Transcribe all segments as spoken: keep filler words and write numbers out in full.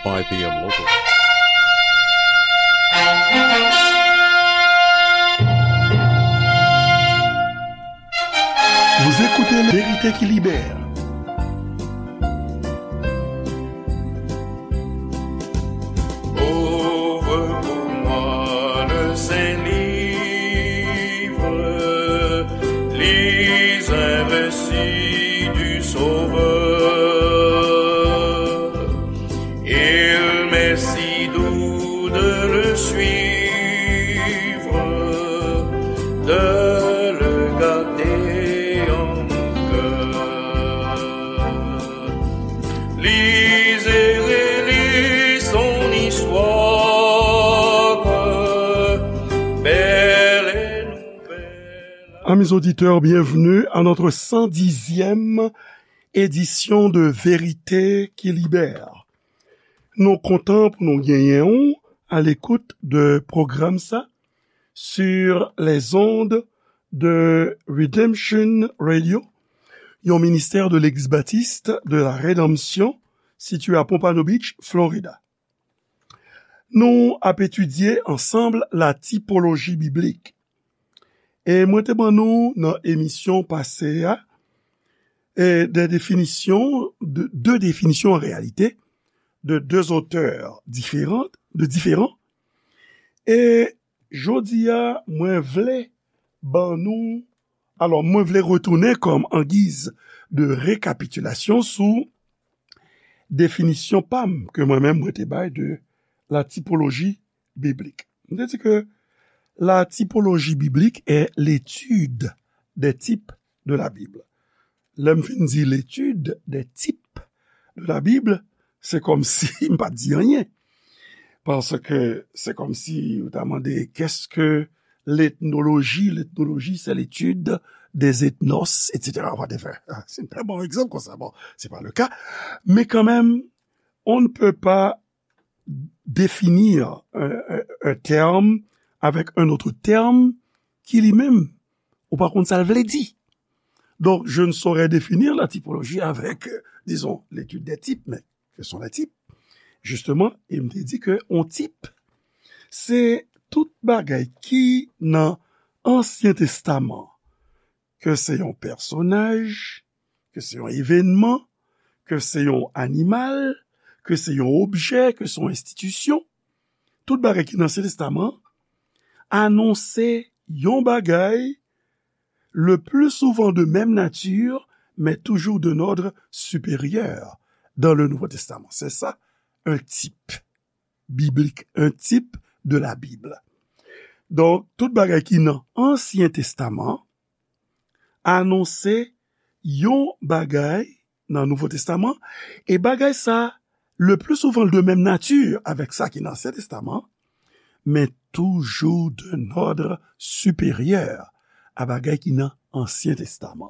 five p.m. local. Vérité qui libère. Ouvre pour moi le Saint-Livre, lis un récit du Sauveur. Il m'est si doux de le suivre, de le garder en mon cœur. Lis et relis son histoire, belle et nouvelle. Amis auditeurs, bienvenue à notre cent dixième édition de Vérité qui libère. Nou kontan pou nou genyen w à l'écoute de pwogram sa sur les ondes de Redemption Radio, yon ministè de Legliz Batis de la Redanmsyon sitiye a Pompano Beach, Florida. Nou ap etidye ansanm la tipoloji biblik. E mwen te ban nou nan emisyon pase a, e, de definisyon, de, de definisyon an reyalite, de de otè diferan, de diferan. E jodi a, mwen vle ban nou, alò, mwen vle retounen kòm an giz de rekapitilasyon sou definisyon pa m ke mwen menm mwen te bay de la tipoloji biblik. Mwen te di ke la tipoloji biblik est l'étude des types de la Bible. Lè m fin di l'étude des types de la Bible, se kòmsi m pa t di anyen. Paske se kòmsi ou ta mande, qu'est-ce que l'ethnologie? L'ethnologie, c'est l'étude des ethnos, et cetera. Whatever. Se yon trè bon egzanp konsa. Bon, c'est pas le cas. Mais quand même, on ne peut pas définir un, un, un terme avec un autre terme qui lui-même, ou pa konn sa l vle di. Donc, je ne saurais définir la typologie avec, euh, disons, l'étude des types, mais que sont les types? Justement, e m te di ke yon tip, se tout bagay ki nan Ansyen Testaman, ke se yon pèsonaj, ke se yon evènman, ke se yon animal, ke se yon objè, ke se yon enstitisyon, tout bagay ki nan Ansyen Testaman anonse yon bagay, le plus souvent de même nature, mais toujours d'un ordre supérieur dans le Nouveau Testament. C'est ça, un type biblique, un type de la Bible. Donk, tout bagay ki nan Ansyen Testaman anonse yon bagay nan Nouvo Testaman, e bagay sa, le plus souvent de même nature avec sa ki nan Ansyen Testaman, mais toujours d'un ordre supérieur a bagay ki nan Ansyen Testaman.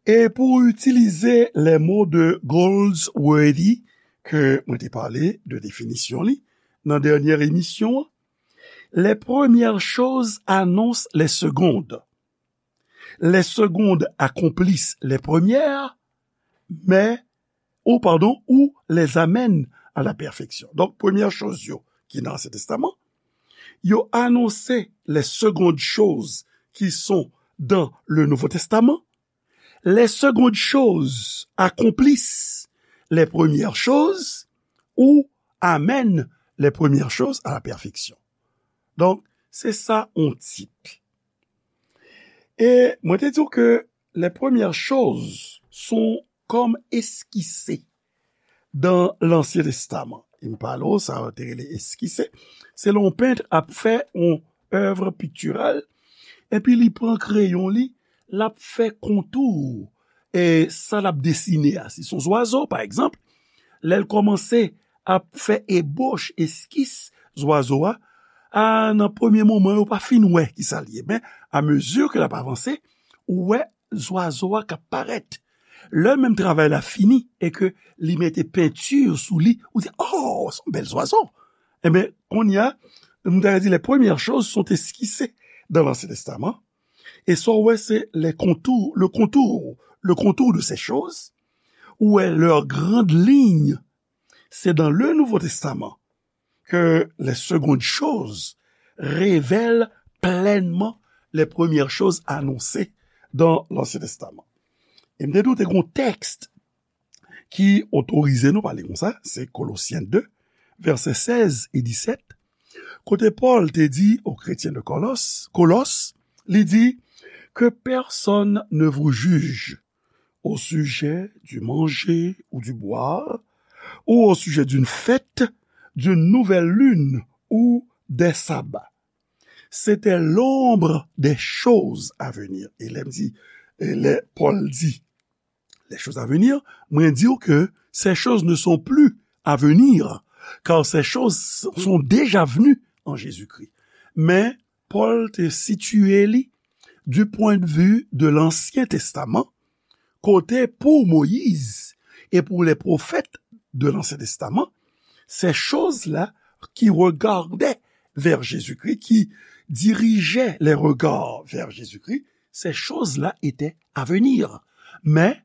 E pou itilize les mots de Goldsworthy, ke mwen te pale de definisyon li nan dènyè emisyon an, les premières choses annoncent les secondes. Les secondes accomplissent les premières, mais, ou pardon, ou les amènent à la perfection. Donk, premyè choz yo ki nan Ansyen Testaman, yo anonse les secondes choses qui sont dans le Nouveau Testament. Les secondes choses accomplissent les premières choses ou amènent les premières choses à la perfection. Donk, se sa yon tip. E mwen te di w ke les premières choses sont comme esquissées dans l'Ancien Testament. E m pale w, sa yo te rele eskise. Se lè yon pent ap fè yon èv piktiral, epi li pran kreyon li, l ap fè kontou, e sa l ap desine a. Si se yon zwazo, pa egzanp, lè l kòmanse ap fè ebòch, eskis zwazo a, a, nan premye moman, yo pa fin wè ki sa l ye. Men, amezi ke l ap avanse, ou wè zwazo a k ap parèt. Lè menm travay la fini e ke li mete penti sou li, ou di, "Oh, se yon bèl zwazo." Enben, kounye a, m ta di, les premières choses sont esquissées dans l'Ancien Testament. E sa w wè, se les contours, le contour, le contour de ces choses, ou wè leurs grandes lignes, c'est dans le Nouveau Testament que les secondes choses révèlent pleinement les premières choses annoncées dans l'Ancien Testament. E m te di w te gen yon tèks ki otorize nou pale konsa, se Kolosyen de, vèsè sèz e disèt, kote Pòl te di aux chrétiens de Kolos, Kolos, li di, que personne ne vous juge au sujet du manger ou du boire, ou au sujet d'une fête, d'une nouvelle lune ou des sabbats. C'était l'ombre des choses à venir. E lè m di, e lè Pòl di, les choses à venir, mwen di w ke ces choses ne sont plus à venir, car ces choses sont déjà venues en Jésus-Christ. Men Pòl te sitiye li du point de vue de l'Ancien Testament, kote pou Moyiz e pou les prophètes de l'Ancien Testament, ces choses-là qui regardaient vers Jésus-Christ, qui dirigeaient les regards vers Jésus-Christ, ces choses-là étaient à venir. Mais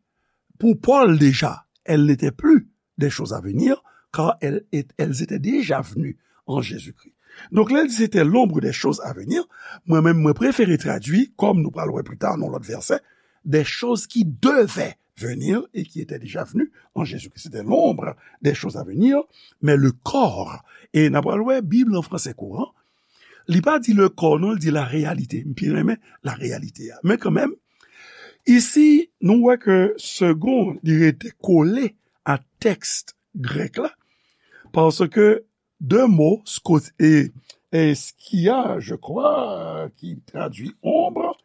pour Paul déjà, elles n'étaient plus des choses à venir, car elles, elles étaient déjà venues en Jésus-Christ. Donk, lè l di c'était l'ombre des choses à venir, mwen menm, mwen prefere tradui, kòm nou pral wè pli ta nan lòt vèsè, des choses qui devaient venir et qui étaient déjà venues en Jésus-Christ. C'était l'ombre des choses à venir, mais le corps. E n ap pral wè Bib lan fransè kouran, li pa di le corps, non, li di la réalité. M pi renmen la réalité a. Men kanmenm, isi, nou wè ke second, li rete kole a tèks grèk la, paske de mo, skot-, e, e skia, je crois, ki tradui ombre,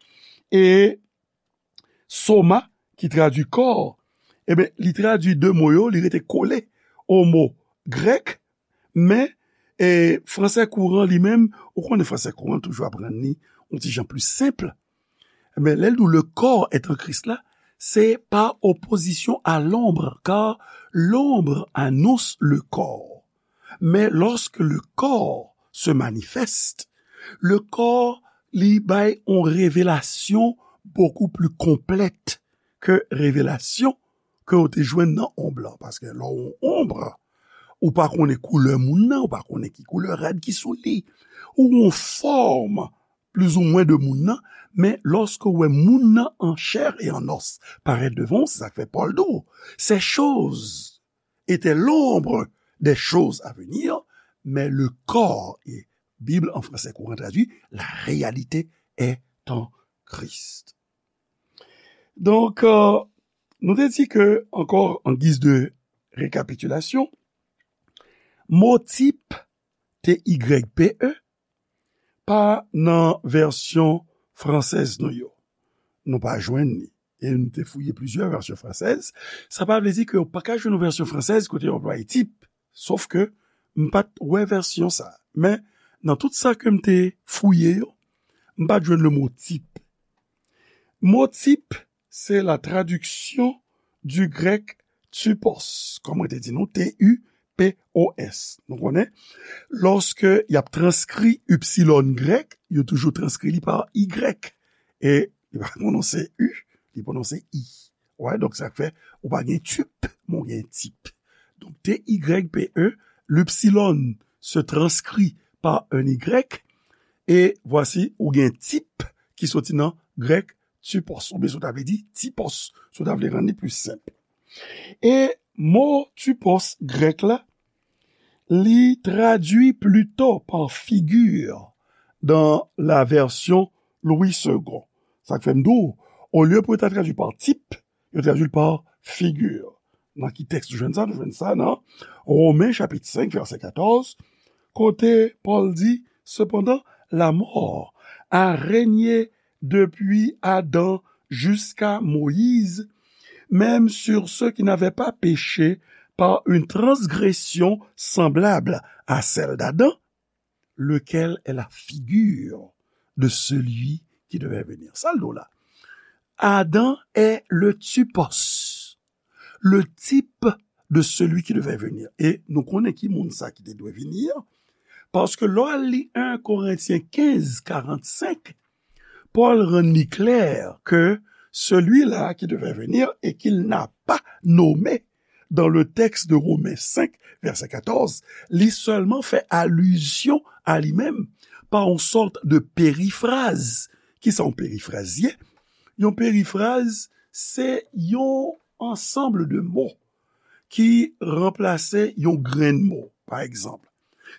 e soma, ki tradui kò, ebyen, li tradui de mo yo, li rete kole o mo grèk, men, e, fransè kouran li menm, ou konnen fransè kouran toujou ap rann li yon ti jan pli senp. Men lè l di le corps est en Christ la, c'est par opposition à l'ombre, car l'ombre annonce le corps. Mais lorsque le corps se manifeste, le corps li bay yon revelasyon beaucoup plus complète ke revelasyon ke w te jwenn nan onb lan. Paske lè w yon onb, ou pa konnen koulè moun nan, ou pa konnen ki koulè rad ki sou li, ou yon fòm plizoumwen de moun nan, men lòske w wè moun nan an chè e an os parèt devan w, se sa k fè Pòl di w, ces choses étaient l'ombre des choses à venir, mais le corps, et Bible en français courant traduit, la réalité est en Christ. Donk, euh, nou te di ke, ankò, an giz de rekapitilasyon, mo tip, T Y P E, pa nan vèsyon fransèz nou yo. Nou pa jwenn li. E nou te fouye plizyè vèsyon fransèz. Sa pa vle di ke w pa ka jwenn yon vèsyon fransèz kote yo anplwaye tip. Sof ke m pa t wè vèsyon sa. Men, nan tout sa ke m te fouye yo, m pa t jwenn le mo tip. Mo tip, se la traduction du grec typos, kòm mwen te di nou, T U P O S. Nou konnen, lòske y ap transkri ipsilon grèk, yo toujou transkri li pa Y. E li pa pwononse U, li pwononse I. Wè, donk sa fè, ou pa gen tip, men w gen tip. Donk, T Y P E, l'ipsilon se transcrit par un Y, e vwasi, ou gen tip ki soti nan grèk typos, oubyen si w ta vle di tipos, si w ta vle rann li pli senp. E mo typos grèk la, li tradui plito pa figi dan la vèsyon Louis Segond. Sa k fè m di w, olye pou yo ta tradui pa tip, yo tradui l pa figi. Nan ki tèks nou jwenn sa? Nou jwenn sa nan Women chapit senk, vèsè katòz, kote Pòl di, cependant, la mort a régné depuis Adam jusqu'à Moïse, même sur ceux qui n'avaient pas péché par une transgression semblable à celle d'Adam, lequel est la figure de celui qui devait venir. Sa l di w la. Adam est le typos, le type de celui qui devait venir. E nou konnen ki moun sa ki te dwe vini an, paske lè w al li en Korentyen kenz karannsenk, Pòl rann li klè ke celui-là qui devait venir et qu'il n'a pas nommé, dans le texte de Romains cinq, verset quatorze, li sèlman fè alizyon a li menm pa yon sòt de perifraz. Ki sa yon perifraz ye? Yon perifraz, se yon ansanm de mo ki ranplase yon grenn mo. Pa egzanp,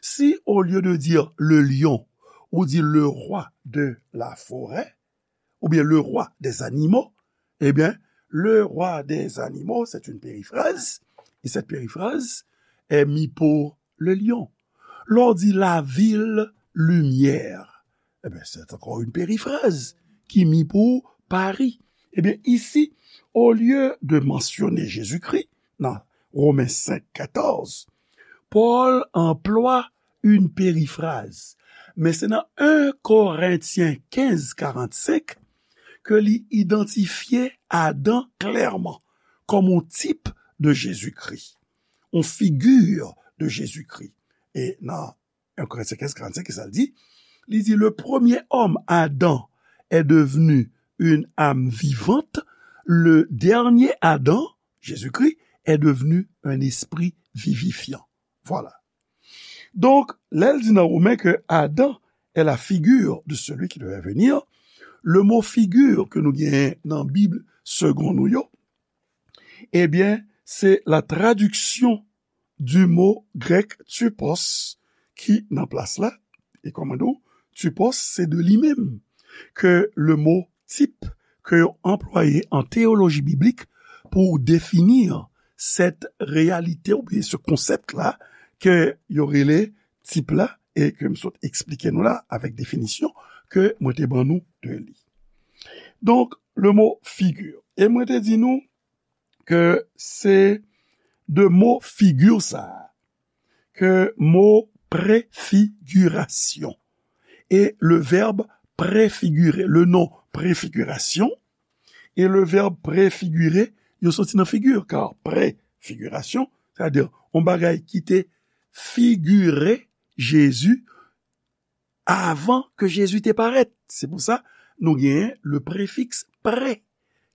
si au lieu de dire le lion, ou di le roi de la forêt, ou bien le roi des animaux, eh bien, le roi des animaux, c'est une périphrase, et cette périphrase est mis pour le lion. Lè w di la ville lumière, eh bien, c'est encore une périphrase qui est mis pour Paris. Eh bien, ici, au lieu de mentionner Jésus-Christ, dans Romains cinq, quatorze, Paul emploie une périphrase. Men se nan un Korentyen kenz karannsenk ke li idantifye Adan klèman kòm yon tip de Jezikri, yon figi de Jezikri. E nan un Korentyen kenz karannsenk, ki sa l di? Li di, le premier homme, Adam, est devenu une âme vivante, le dernier Adam, Jésus-Christ, est devenu un esprit vivifiant. Voilà. Donk, lè l di nan Women ke Adan est la figure de celui qui devait venir, le mo figure ke nou genyen nan Bib segon nou yo, ebyen, se la traduction du mot grec typos ki nan plas la. E kòman nou, typos, se de li menm ke le mo tip ke yo anplwaye an teyoloji biblik pou defini cette réalité oubyen ce concept-là ke yo rele tip la e ke m sot eksplike nou la avèk definisyon ke mwen te ban nou de li. Donk, le mo figure. E mwen te di nou ke se de mo figure sa a, ke mo préfiguration et le verbe préfigurer, le nom préfiguration et le verbe préfigurer, yo soti nan figure, car préfiguration, c'est-à-dire yon bagay ki te figire Jezi avan ke Jezi te parèt. Se pou sa, nou genyen le préfixe pré,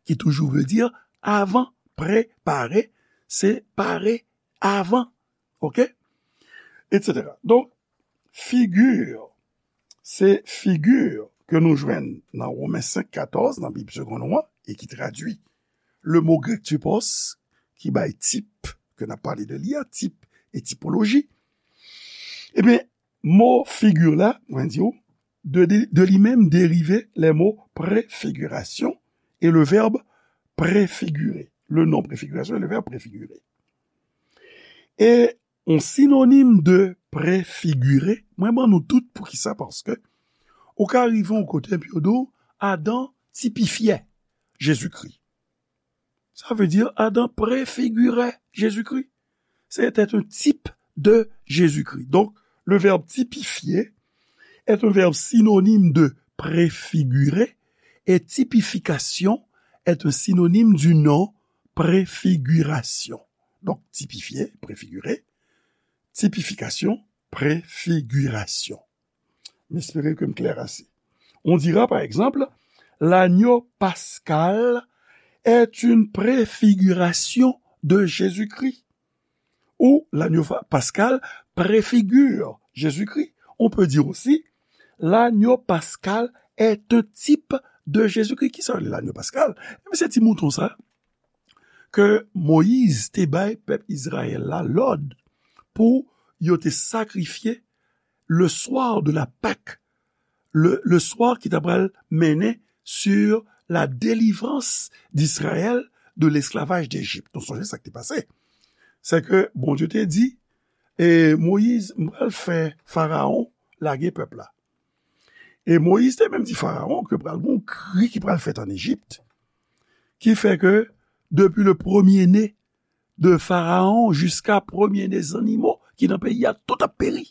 ki toujou vle di avan, préparer, se pare avan, oke? Etsetera. Donk, figure, se figure ke nou jwenn nan Women senk katòz, nan Bib segon nou an, e ki tradui le mo grek typos, ki bay tip, ke n ap pale de li a, tip e tipoloji. Ebyen, mo figure la, mwen di w, de, de, de li menm derive les mots préfiguration et le verbe préfigurer. Le nom préfiguration et le verbe préfigurer. E yon sinonim de préfigurer, mwen ban nou tout poukisa, paske ou ka rive yon kote epi yo di w, Adan tipifye Jezikri. Ça veut dire Adam préfigurait Jésus-Christ. C'était un type de Jésus-Christ. Donc, le verbe typifier est un verbe synonyme de préfigurer et typification est un synonyme du nom préfiguration. Donc, typifier, préfigurer, typification, préfiguration. M espere ke m klè ase. On dira, par exemple, l'agneau pascal est une préfiguration de Jésus-Christ. Ou l'agneau fa- pascal préfigure Jésus-Christ. On peut dire aussi, l'agneau pascal est un type de Jésus-Christ. Ki sa yo rele l'agneau pascal? Ebyen, se ti mouton sa ke Moyiz te bay pèp Izrayèl la lòd pou yo te sakrifye le soir de la Pâque, le, le soir ki ta pral mennen sur la délivrance d'Israël de l'esclavage d'Égypte. Nou sonje sa k te pase. Se ke Bondye te di, e Moyiz, m pral fè Farawon lage pèp la. E Moyiz te menm di Farawon ke pral gen yon kri ki pral fèt an Ejipt, ki fè ke depi le premye ne de Farawon jiska premye ne zannimo ki nan peyi a, tout ap peri.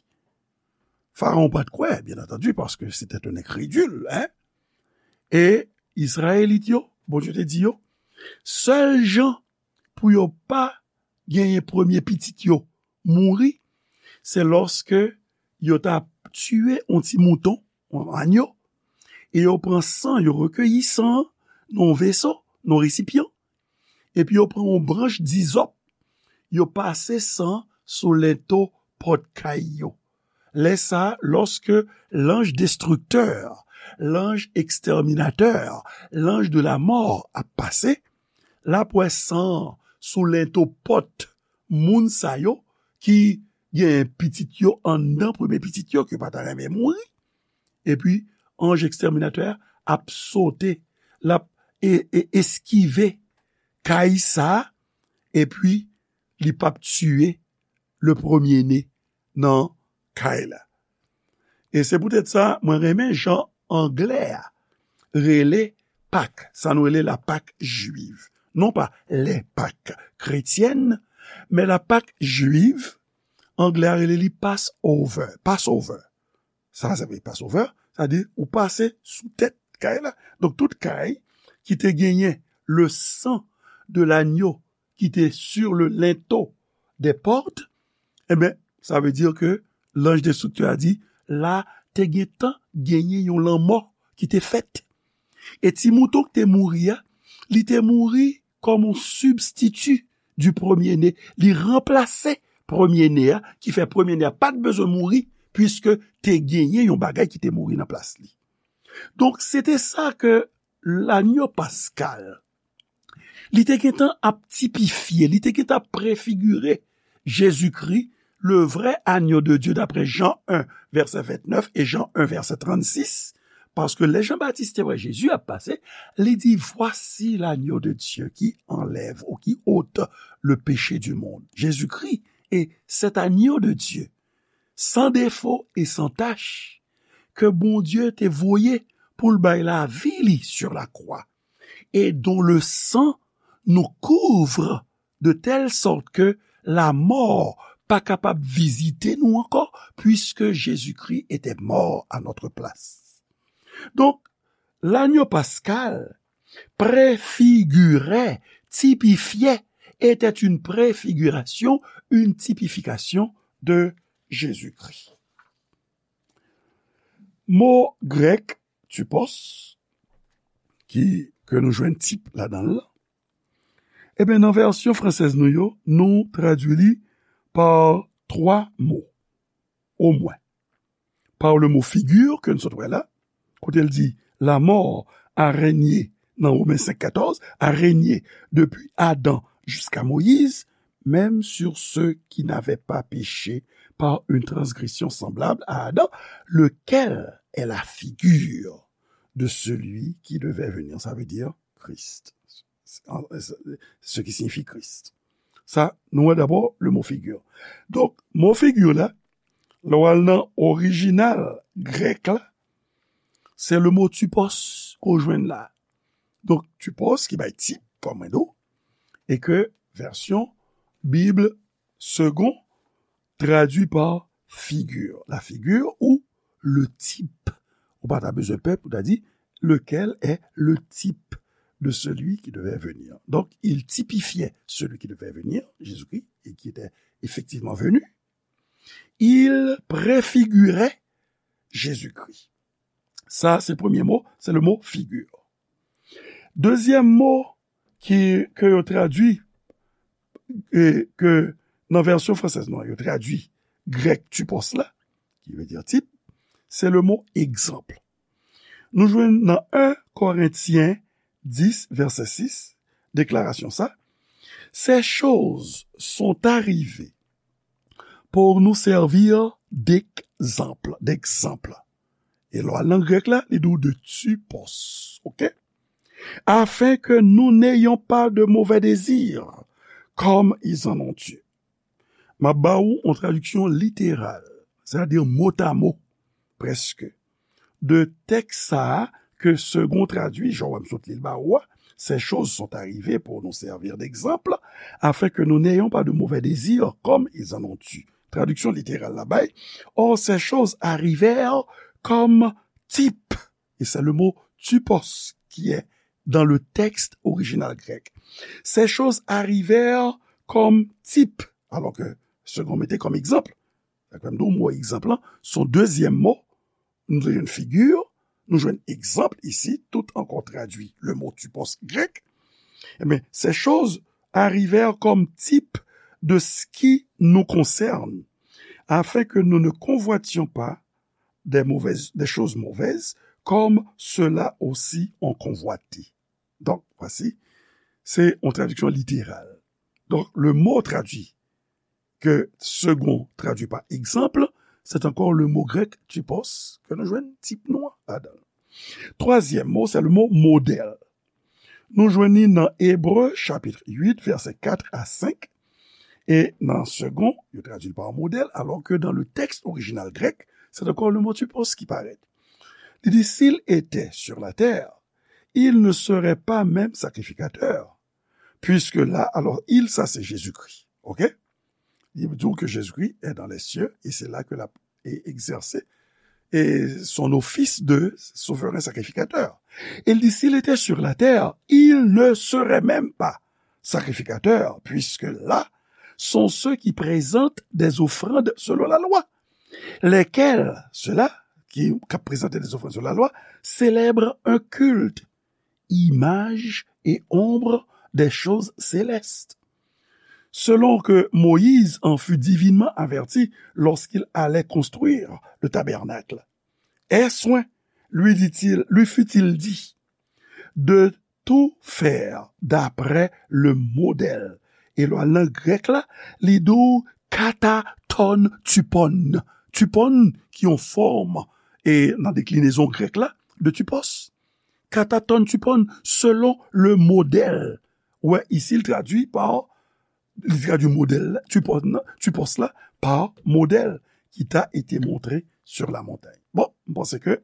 Farawon pa t kwè, byen antandi, paske se te yon enkredil, en. E Izrayelit yo, Bondye te di yo, sèl jan pou yo pa genyen premye pitit yo mouri, se lòske yo ta tiye yon ti mouton, yon anyo, e yo pran san, yo rekeyi san an nan yon veso, nan yon resipyan, epi yo pran yon branch dizòp, yo pase san sou lento pòt kay yo. Lè sa a, lòske lanj destriktè, lanj ekstèminatè, lanj de la mò ap pase, l ap wè san an sou lento pòt moun sa yo ki gen pitit yo anndan, premye pitit yo, ke yo pa ta renmen mouri. Epi, anj ekstèminatè a ap sote, l ap e, e, eskive kay sa a, epi li p ap tiye le premye ne nan kay la. E se poutèt sa, mwen renmen jan anglè a rele Pak, sa nou rele la Pak jwiv. Non pa les Pâques chrétiennes, men la Pak jwiv, anglè a rele li Passover, Passover. Sa, sa vle Passover, sa di ou pase sou tèt kay la. Donk, tout kay ki te genyen le sang de l'agneau ki te sur le linteau des portes, enben, sa vle di ke lanj destriktè a di, la te gentan genyen yon lanmò ki te fèt. E ti mouton ki te mouri a, li te mouri kòm yon sibstiti du premier-né. Li ranplase premye ne a, ki fè premye ne a pa t bezwen mouri, piske te genyen yon bagay ki te mouri nan plas li. Donk, se te sa ke lanyo paskal, li te gentan ap tipifye, li te gentan ap prefigire Jezikri, le vrai agneau de Dieu, d'après Jean un, verset vingt-neuf, et Jean un, verset trente-six, paske lè Jan Batis te wè Jezi ap pase, li di, Voici l'agneau de Dieu qui enlève ou qui ôte le péché du monde. Jésus-Christ est cet agneau de Dieu, sans défaut et sans tache, ke Bondye te voye pou l bay lavi li sur la croix, et dont le sang nous couvre de telle sorte que la mort pa kapab vizite nou ankò, puisque Jésus-Christ était mort à notre place. Donk, lanyo paskal prefigire, tipifye, était une préfiguration, une typification de Jésus-Christ. Mo grèk typos, ki, ke nou jwenn tip ladan l, ebyen, nan vèsyon fransèz nou yo, nou tradui li pa twa mo, omwen. Par le mot figure, ke n sot wè la, kote l di, la mort a régné, nan Romen senk katòz, a régné depuis Adam jusqu'à Moïse, même sur ceux qui n'avaient pas péché par une transgression semblable à Adam, lequel est la figure de celui qui devait venir. Ça veut dire Christ. Ce qui signifie Christ. Sa, nou wè dabò le mo figure. Donk, mo figure la, lè w al nan orijinal grèk la, se le mo typos ke w jwenn la. Donk, typos ki bay tip, kòm mwen di w, e ke vèsyon Bib Segond tradui pa figure, la figure ou le type. Ou pa ta bezwen pè pou ta di, lequel est le type de celui qui devait venir. Donc, il typifiait celui qui devait venir, Jésus-Christ, et qui était effectivement venu. Il préfigurait Jésus-Christ. Sa, se premye mo, se le mo figure. Dezyèm mo ki, ke yo tradui, e, ke nan vèsyon fransèz nou an, yo tradui grèk typos la, ki vle di tip, se le mo egzanp. Nou jwenn nan en Korentyen dis, vèsè sis, deklarasyon sa, Ces choses sont arrivées pour nous servir d'exemple, d'exemple. E lè w al nan grèk la, li di w de typos, oke? Afin que nous n'ayons pas de mauvais désirs, comme ils en ont eu. M ap ba ou yon tradiksyon literal, sètadi motamo, prèske, de tèks sa a ke Segond tradui, jan w wè m sot li l ba ou a, Ces choses sont arrivées pour nous servir d'exemple, afin que nous n'ayons pas de mauvais désirs comme ils en ont eu. Tradiksyon literal la bay, Or, ces choses arrivèrent comme type, et c'est le mot typos qui est dans le texte original grec. Ces choses arrivèrent comme type, alors que Segond mete comme exemple. Sa k fè m di w mo egzanp lan, se yon dezyèm mo. Nou te jwenn figure, nou jwenn egzanp isi, tout ankò tradui le mot typos grèk. Ebyen, ces choses arrivèrent comme type de ce qui nous concerne, afin que nous ne convoitions pas des mauvaises, des choses mauvaises, comme ceux-là aussi ont convoité. Donc, voici, c'est une traduction littérale. Donc, le mot traduit, que Segond traduit par exemple, c'est encore le mot grec typos, que nous jouons type noir là-dedans. Troisième mot, c'est le mot modèle. Nou jwenn li nan Ebre chapit uit, vèsè kat a senk. E nan Segond, yo tradui l pa modèl, alors que dans le texte original grec, c'est encore le mot typos qui paraît. Li di, s'il était sur la terre, il ne serait pas même sacrificateur. Puisque là, alors, il, ça c'est Jésus-Christ. OK? Il dit que Jésus-Christ est dans les cieux et c'est là que la et exercer et son office de souverain sacrificateur. Il dit, s'il était sur la terre, il ne serait même pas sacrificateur, puisque là sont ceux qui présentent des offrandes selon la loi, lesquels, ceux-là qui, qui présentent des offrandes selon la loi, célèbrent un culte, image et ombre des choses célestes, selon que Moïse en fut divinement averti lorsqu'il allait construire le tabernacle. Aie soin, lui dit-il, lui fut-il dit, de tout faire d'après le modèle. E lè w al nan grèk la, li di w kataton typon. Typon ki yon fòm e nan deklinezon grèk la de typos. Kataton typon selon le modèl. Ou wè, isi, l tradui pa, li tradui modèl la, typos la, typos la, pa modèl qui t'a été montré sur la montagne. Bon, m panse ke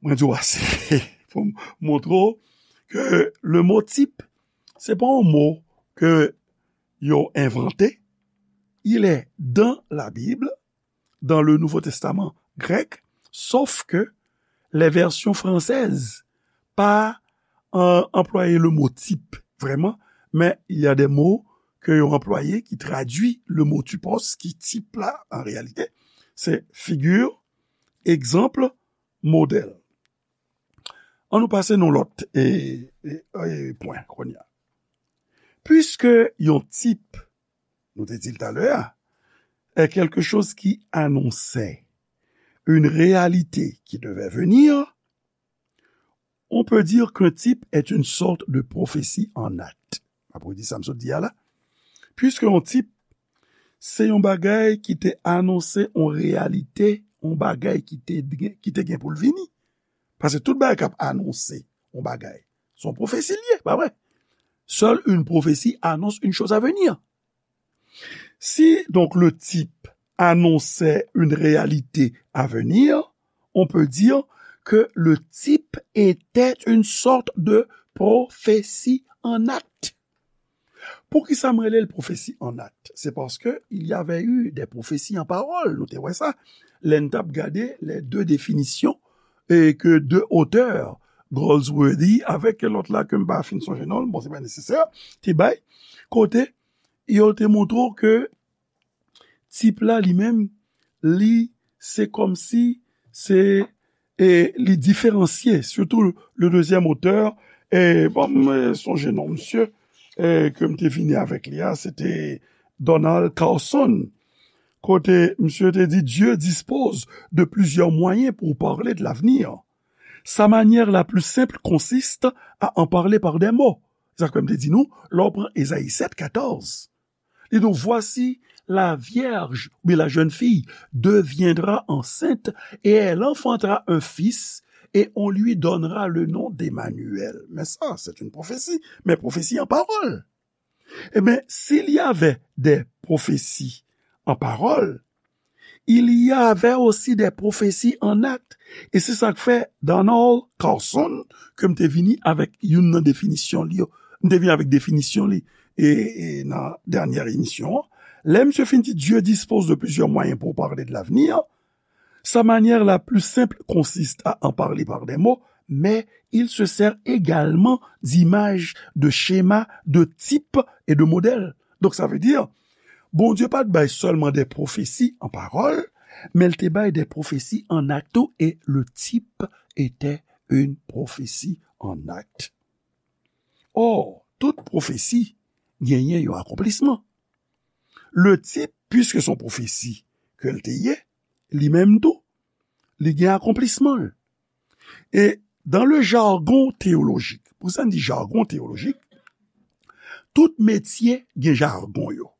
mwen di w ase pou m montre w ke le mot type, se pa yon mo ke yo envante. Il est dans la Bible, dans le Nouveau Testament grec, sauf que les versions françaises pa euh, employé le mot type, vraiment, mais il y a des mots que yo employé qui traduit le mot typos, ki type la, en réalité, c'est figure, exemple, modèle. An nou pase nan lòt e, e, e pwen kounye a. Puisque yon type, nou te di l talè a, est quelque chose qui annonçait une réalité qui devait venir, on peut dire qu'un type est une sorte de prophétie en acte. Apre di sa m sot di a la. Puisque yon type, se yon bagay ki te anonse yon reyalite, yon bagay ki te, ki te gen pou l vini. Paske tout bagay k ap anonse yon bagay, se yon pwofesi l ye, pa vre? Seule une prophétie annonce une chose à venir. Si donc le type annonçait une réalité à venir, on peut dire que le type était une sorte de prophétie en acte. Poukisa m rele l pwofesi an akt? Se paske il y avait eu des prophéties en parole. Nou te wè sa. Lè n t ap gade les deux définitions et que deux auteurs, Goldsworthy avèk lòt la ke m pa fin sonje non l, bon, se pa nesesè, te bay, kote yo te montre w ke tip la li menm, li, se kòmsi se, e li diferansye, sitou le dezyèm otè, e bon, m sonje non misye, e ke m te vini avèk li a, se te Donald Carson, kote misye te di, Dieu dispose de plusieurs moyens pour parler de l'avenir. Sa manière la plus simple consiste à en parler par des mots. Sa k fè m te di nou, lè w pran Ezayi sèt katòz, li di w, voici, la vierge, ou bien la jeune fille, deviendra enceinte et elle enfantera un fils et on lui donnera le nom d'Emmanuel. Mais ça, c'est une prophétie, mais prophétie en parole. Eh bien, s'il y avait des prophéties en parole, il y avait aussi des prophéties en acte. E se sa k fè Donald Carson, ke m te vini avèk youn nan definisyon li yo. M te vini avèk definisyon li e, e nan dènyè emisyon an. Lè misye fin di, Dieu dispose de plusieurs moyens pour parler de l'avenir, sa manière la plus simple consiste à en parler par des mots, mais il se sert également d'images, de schémas, de types et de modèles. Donc ça veut dire, Bondye pa t bay sèlman de pwofesi an pawòl, men l te bay de pwofesi an akt tou, e le type était une prophétie en acte. Or, tout pwofesi genyen yon akonplisman. le tip, piske se yon pwofesi ke l te ye, li menm tou, li gen akonplisman l. E dans le jargon théologique, pou sa n di jargon théologique, tout metye gen jargon yo.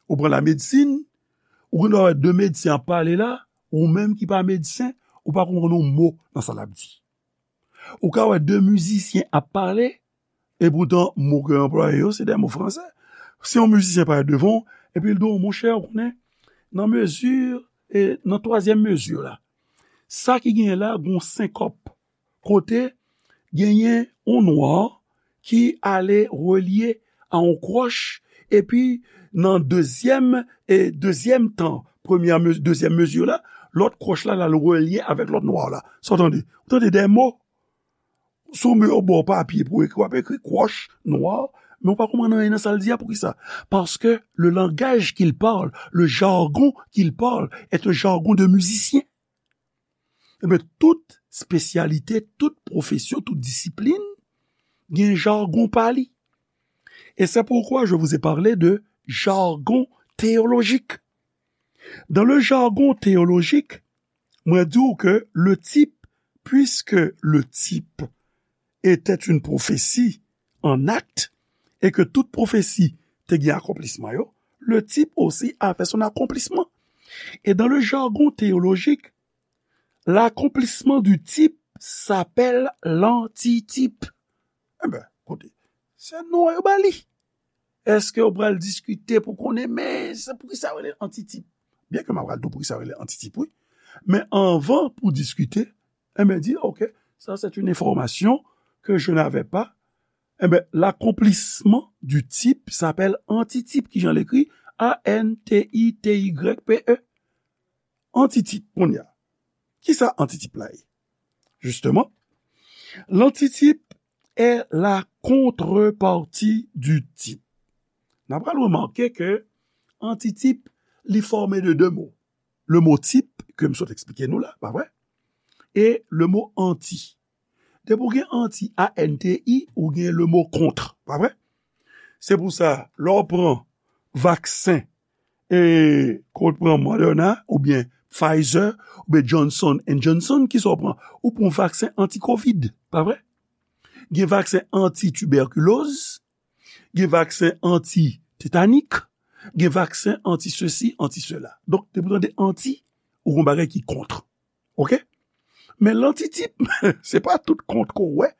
Ou pran lamedsin, ou gen dwa wè de medsen ap pale la, ou menm ki pa medsen, ou pa konprann yon mo nan sa l ap di. Ou ka wè de mizisyen ap pale, e poutan mo ke yo anplwaye yo, se de mo fransè. Si yon mizisyen parèt devan w, epi l di w, monchè, ou konnen, nan mezi, e nan twazyèm mezi la, sa ki genyen la, gon senkòp, kote genyen yon nwa ki ale relye a yon kwòch, epi nan dezyèm, e dezyèm tan, premyè mezi, dezyèm mezi la, lòt kwòch la, l al relye avèk lòt nwa la. Sa w tande? Ou tande de mo? Si w met yon bò papye pou ekri, w ap ekri kwòch, nwa, men w pa konprann anyen nan sa l di a. Poukisa? Paske le langage qu'il parle, le jargon qu'il parle, est un jargon de musicien. Ebyen, tout espesyalite, tout pwofesyon, tout disiplin gen jargon pa li. Et c'est pourquoi je vous ai parlé de jargon théologique. Dans le jargon théologique, mwen di w ke le type, puisque le type était une prophétie en acte, et que toute prophétie te gen akonplisman yo, le type aussi avait son accomplissement. Et dans le jargon théologique, l'accomplissement du type s'appelle l'antitype. Enben, koute, se non yo ba li. Èske w pral diskite pou konnen, men se poukisa yo rele antitype? Byen ke m ap pral di w poukisa yo rele antitype, wi. Men anvan pou diskite, enben, di, ok, ça c'est une information que je n'avais pas. Enben, l'accomplissement du type s'appelle antitype, ki jan l ekri, A N T I T Y P E. Antitype, kounye a. Kisa antitype la ye? Justement, l'antitype est la contrepartie du type. N a pral remake ke antitype, li fòme de de mo. Le mo type, ke m sot eksplike nou la, pa vre? E le mo anti. Depi w gen anti, A N T I, ou gen le mo contre, pa vre? Se pou sa, lè w pran vaksen, e, ke w pran Moderna, oubyen Pfizer, oubyen Johnson and Johnson, kisa w pran? Ou pran vaksen anti-covid, pa vre? Gen vaksen anti-tibèkiloz, gen vaksen anti-tetanik, gen vaksen anti-sesi, anti-sela. Donk, depi w tande anti, ou gen yon bagay ki kont. Ok? Men lantitype, se pa tout kont ke w wè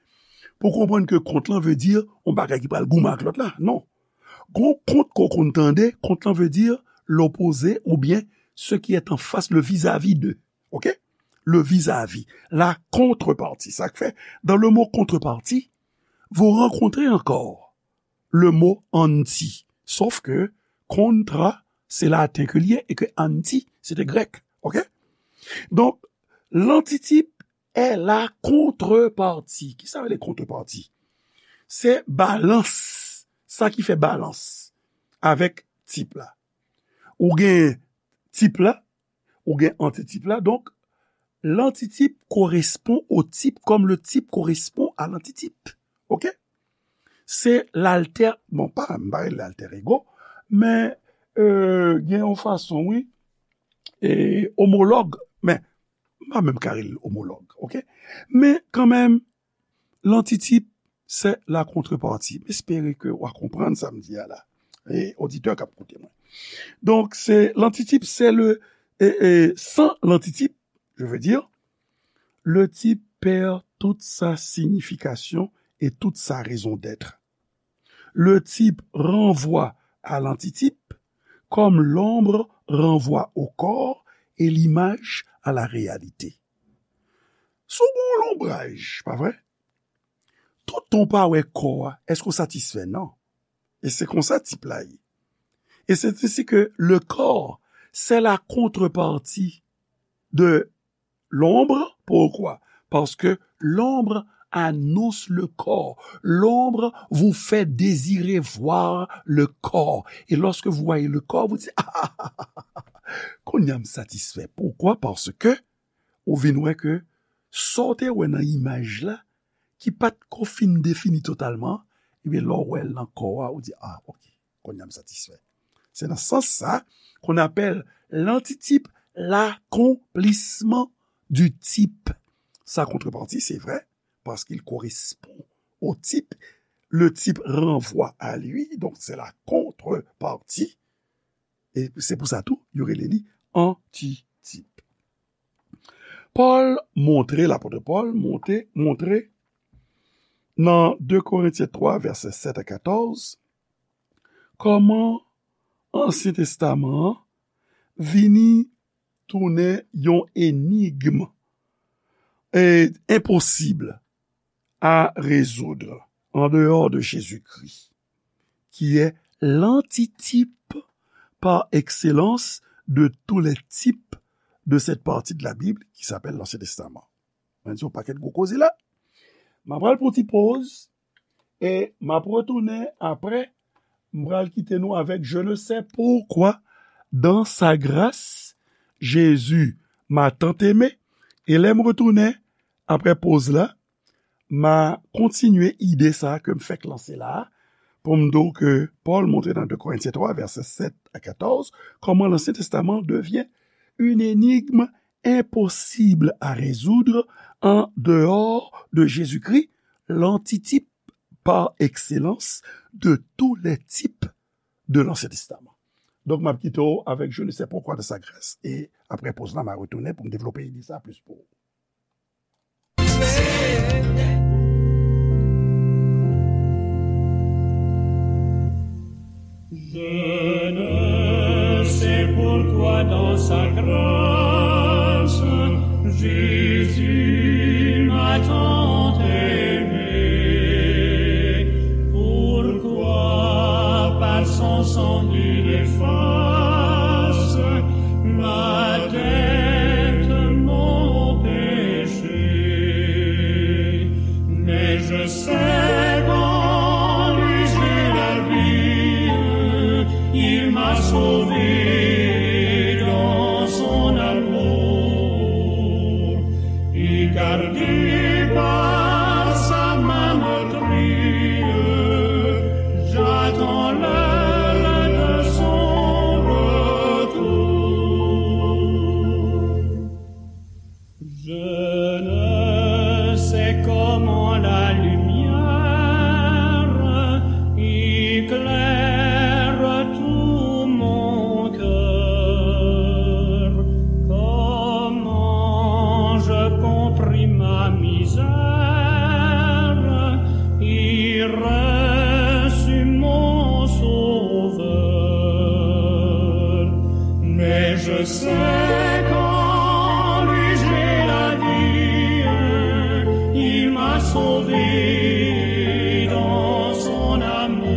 pou konprann ke kont lan vle di yon bagay ki pral goumen ak lòt la. Non. Gon kont ke w konn tande, kont lan vle di l'opposé oubyen ce qui est en face, le vis-à-vis de. Ok? Le vis-à-vis, la contrepartie. Sa k fè, dans le mot contrepartie, vous rencontrez encore le mot anti. Sauf que contra, se laten ke l ye, e ke anti, se te grèk. Ok? Donk, l'antitype est la contrepartie. Kisa rele contrepartie? Se balans, sa ki fè balans avèk type la. Ou gen type la, ou gen antitype la. Donk, l'antitype correspond au type comme le type correspond à l'antitype. Ok? Se l'alter, bon, pa, m pa rele l'alter ego, men, euh, gen yon fason, wi, e omològ, men, m pa menm ka rele l omològ, ok? Men kanmenm, l'antitype, c'est la contrepartie. M espere ke w a konprann sa m di a la. E oditè k ap koute mwen. Donk, se l'antitype, c'est le, et, et sans l'antitype, je veux dire, le type perd toute sa signification et toute sa raison d'être. Le type renvoie à l'antitype comme l'ombre renvoie au corps et l'image à la réalité. Si w gen yon lonbraj, pa vre? Toutan w pa wè kò a, èske w satisfè? Non. E se konsa type la ye. Et c'est ainsi que le corps, c'est la contrepartie de l'ombre. Pourquoi? Parce que l'ombre annonce le corps. L'ombre vous fait désirer voir le corps. Et lorsque vous voyez le corps, vous dites, ah, kounye a m satisfè. Pourquoi? Parce que ou vin wè ke sa w te wè nan imaj la, ki pa t ko fin defini totalman, ebyen, lè w wè l nan kò a, ou di, ah, ok, kounye a m satisfè. C'est dans ce sens-là qu'on appelle l'antitype l'accomplissement du type. Sa contrepartie, c'est vrai, parce qu'il correspond au type. Le type renvoie à lui, donc c'est la contrepartie. E se pou sa tou, yo rele li antitip. Pòl montre, lapòt Pòl montre, montre nan de Korentyen twa, vèsè sèt a katòz, kòman Ansyen Testaman an vini tounen yon enigm e enposib à résoudre en dehors de Jésus-Christ, qui est l'antitype par excellence de tous les types de cette partie de la Bible qui s'appelle l'Ancien Testament. Mwen di yon pakèt gwo koze la. M ap pral pou ti poz e m ap retounen apre. M pral kite nou avèk je ne sais pourquoi dans sa grâce Jésus m'a tant aimé. E lè m retounen apre poz la, m a kontinye ide sa a ke m fèk lanse la a, pou m di w ke Pòl montre nan de Korentyen twa, vèsè sèt a katòz, comment l'Ancien Testament devient une énigme impossible à résoudre en dehors de Jésus-Christ, l'antitype par excellence de tous les types de l'Ancien Testament. Donk, m ap kite w avèk je ne sais pourquoi de sa grâce. E apre poz la, m a retounen pou m devlope ide sa plis pou ou. Je ne sais pourquoi dans sa grâce, Jésus m'a tant aimé. Pourquoi par son sang il efface ma dette, mon péché. Mais je sais qu'en lui j'ai la vie, il m'a sauvé dans son amour. Et gardé par sa main meurtrie, j'attends l'heure de son retour. Je ne sais comment la lumière éclaire tout mon cœur, comment je compris ma misère et reçus mon Sauveur. Mais je sais qu'en lui j'ai la vie, il m'a sauvé dans son amour,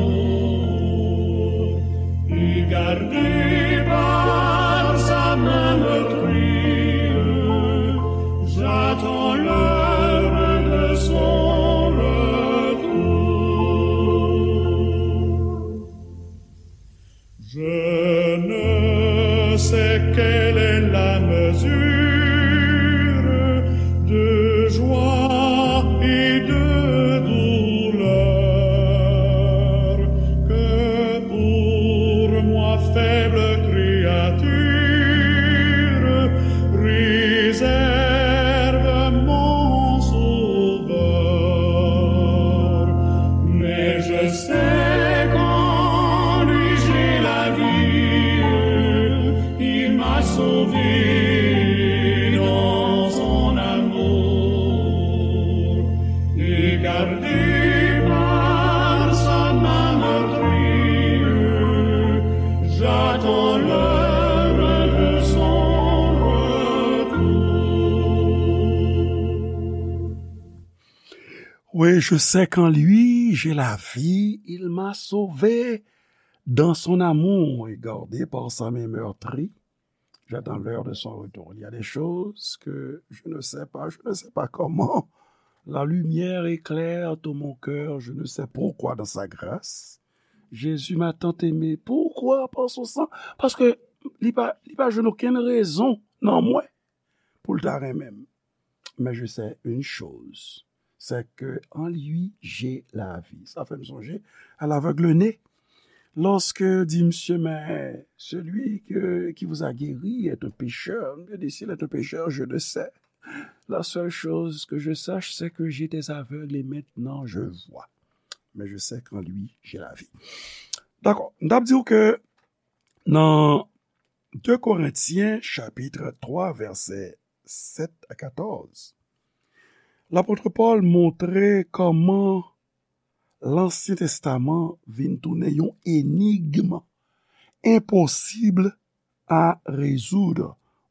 et gardé par sa main meurtrie, j'attends l'heure de son retour. Je ne sais quelle est la mesure de joie et de douleur que pour moi, faible créature, réserve mon Sauveur. Mais je sais qu'en lui j'ai la vie, il m'a sauvé dans son amour, et gardé par sa main meurtrie, j'attends l'heure de son retour. Oui, je sais qu'en lui, j'ai la vie, il m'a sauvé dans son amour, et gardé par sa main meurtrie, j'attends l'heure de son retour. Il y a des choses que je ne sais pas, je ne sais pas comment. La lumière éclaire tout mon cœur, je ne sais pourquoi dans sa grâce. Jésus m'a tant aimé. Pourquoi? Par son sang. Paske li pa, li pa jwenn okenn rezon nan mwen pou l ta renmen m. Mais je sais une chose, c'est que en lui, j'ai la vie. Sa fè m sonje à l'aveugle-né. Lorsque dit monsieur, mais celui que, qui vous a guéri est un pécheur, je dis, s'il est un pécheur, je le sais. La seule chose que je sache, c'est que j'étais aveugle et maintenant je vois. Mais je sais qu'en lui, j'ai la vie. Dakò, m t ap di w ke nan de Korentyen chapit twa vèsè sèt a katòz, lapot Pòl montre kòman Lansyen Testaman vin tounen yon enigm enposib a rezoud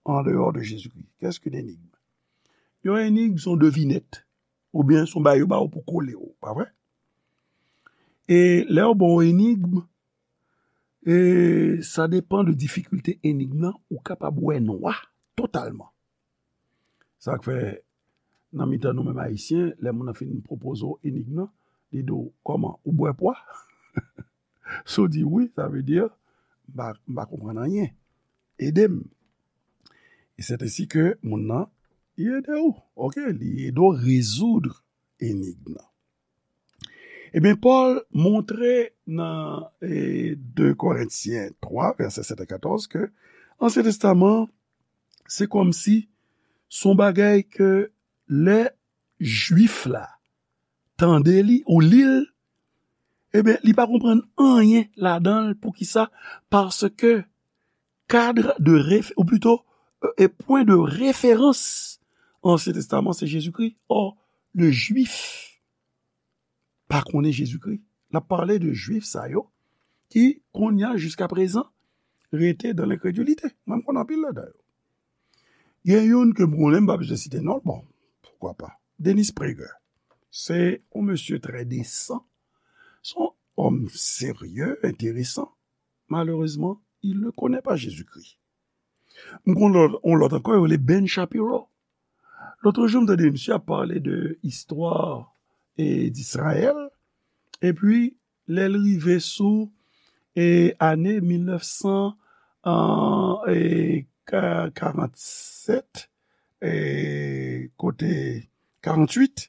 an dehors de Jésus-Christ. Qu'est-ce qu'une énigme? Yon enigm se yon devinèt, oubyen se yon bagay yo ba w pou kole w, pa vre? E lè yo ba w enigm, e sa depan de difikilte enigm nan, ou kapab wè nwa totalman. Sa k fè, nan mitan nou menm Ayisyen, lè moun nan fin pwopoze w enigm nan, li di w, kòman, ou bwè pwa? Si w di wi, sa vle di, m pa, m pa konprann anyen. Ede m. E c'est ainsi que moun nan, li ede w. Oke, li ede w rezoud enigm nan. Ebyen, Pòl montre nan e, de Korentyen twa, vèsè sèt a katòz, ke Ansyen Testaman, se kòmsi se yon bagay ke lè Jwif la tande li ou li l, ebyen, li pa konprann anyen ladan l. Poukisa? Paske kad de ref-, ou plito, e pwen de referans Ansyen Testaman, se Jezikri. Or, le Jwif pa konnen Jezikri. L ap pale de Jwif sa yo ki, kounye a, jiskaprezan, rete dan lenkredilite. Mwen, m konn anpil ladan yo. Gen youn ke m konnen, m pa bezwen site non l, bon, poukwa pa. Dennis Prager. Se yon mesye trè desan. Se yon òm serye, enteresan. Malheureusement, il ne connaît pas Jésus-Christ. M konn lòt, yon lòt ankò, yo rele Ben Shapiro. Lòt jou, m tande misye ap pale de istwa e, Disrayèl. Epi, lè l rive sou e, ane mil nèf san, e, ka-, karannsèt, e, kote karantuit,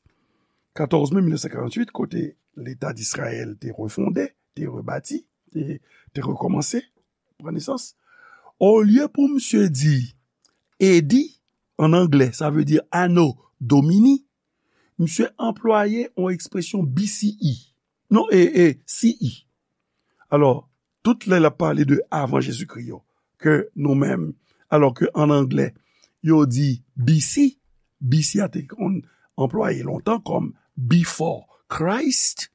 katòz me mil nèf san karantuit, kote Leta Disrayèl te refonde, te rebati, te, te rekòmanse, pran nesans. Olye pou misye di A D, an anglè, sa vle di Anno Domini, misye anplwaye yon ekspresyon B C E. Non, e, e, C E. Alò, tout lè l ap pale de avan Jezikri yo, ke nou menm, alò ke an anglè, yo di B C, B C a te konn anplwaye lontan kòm before Christ,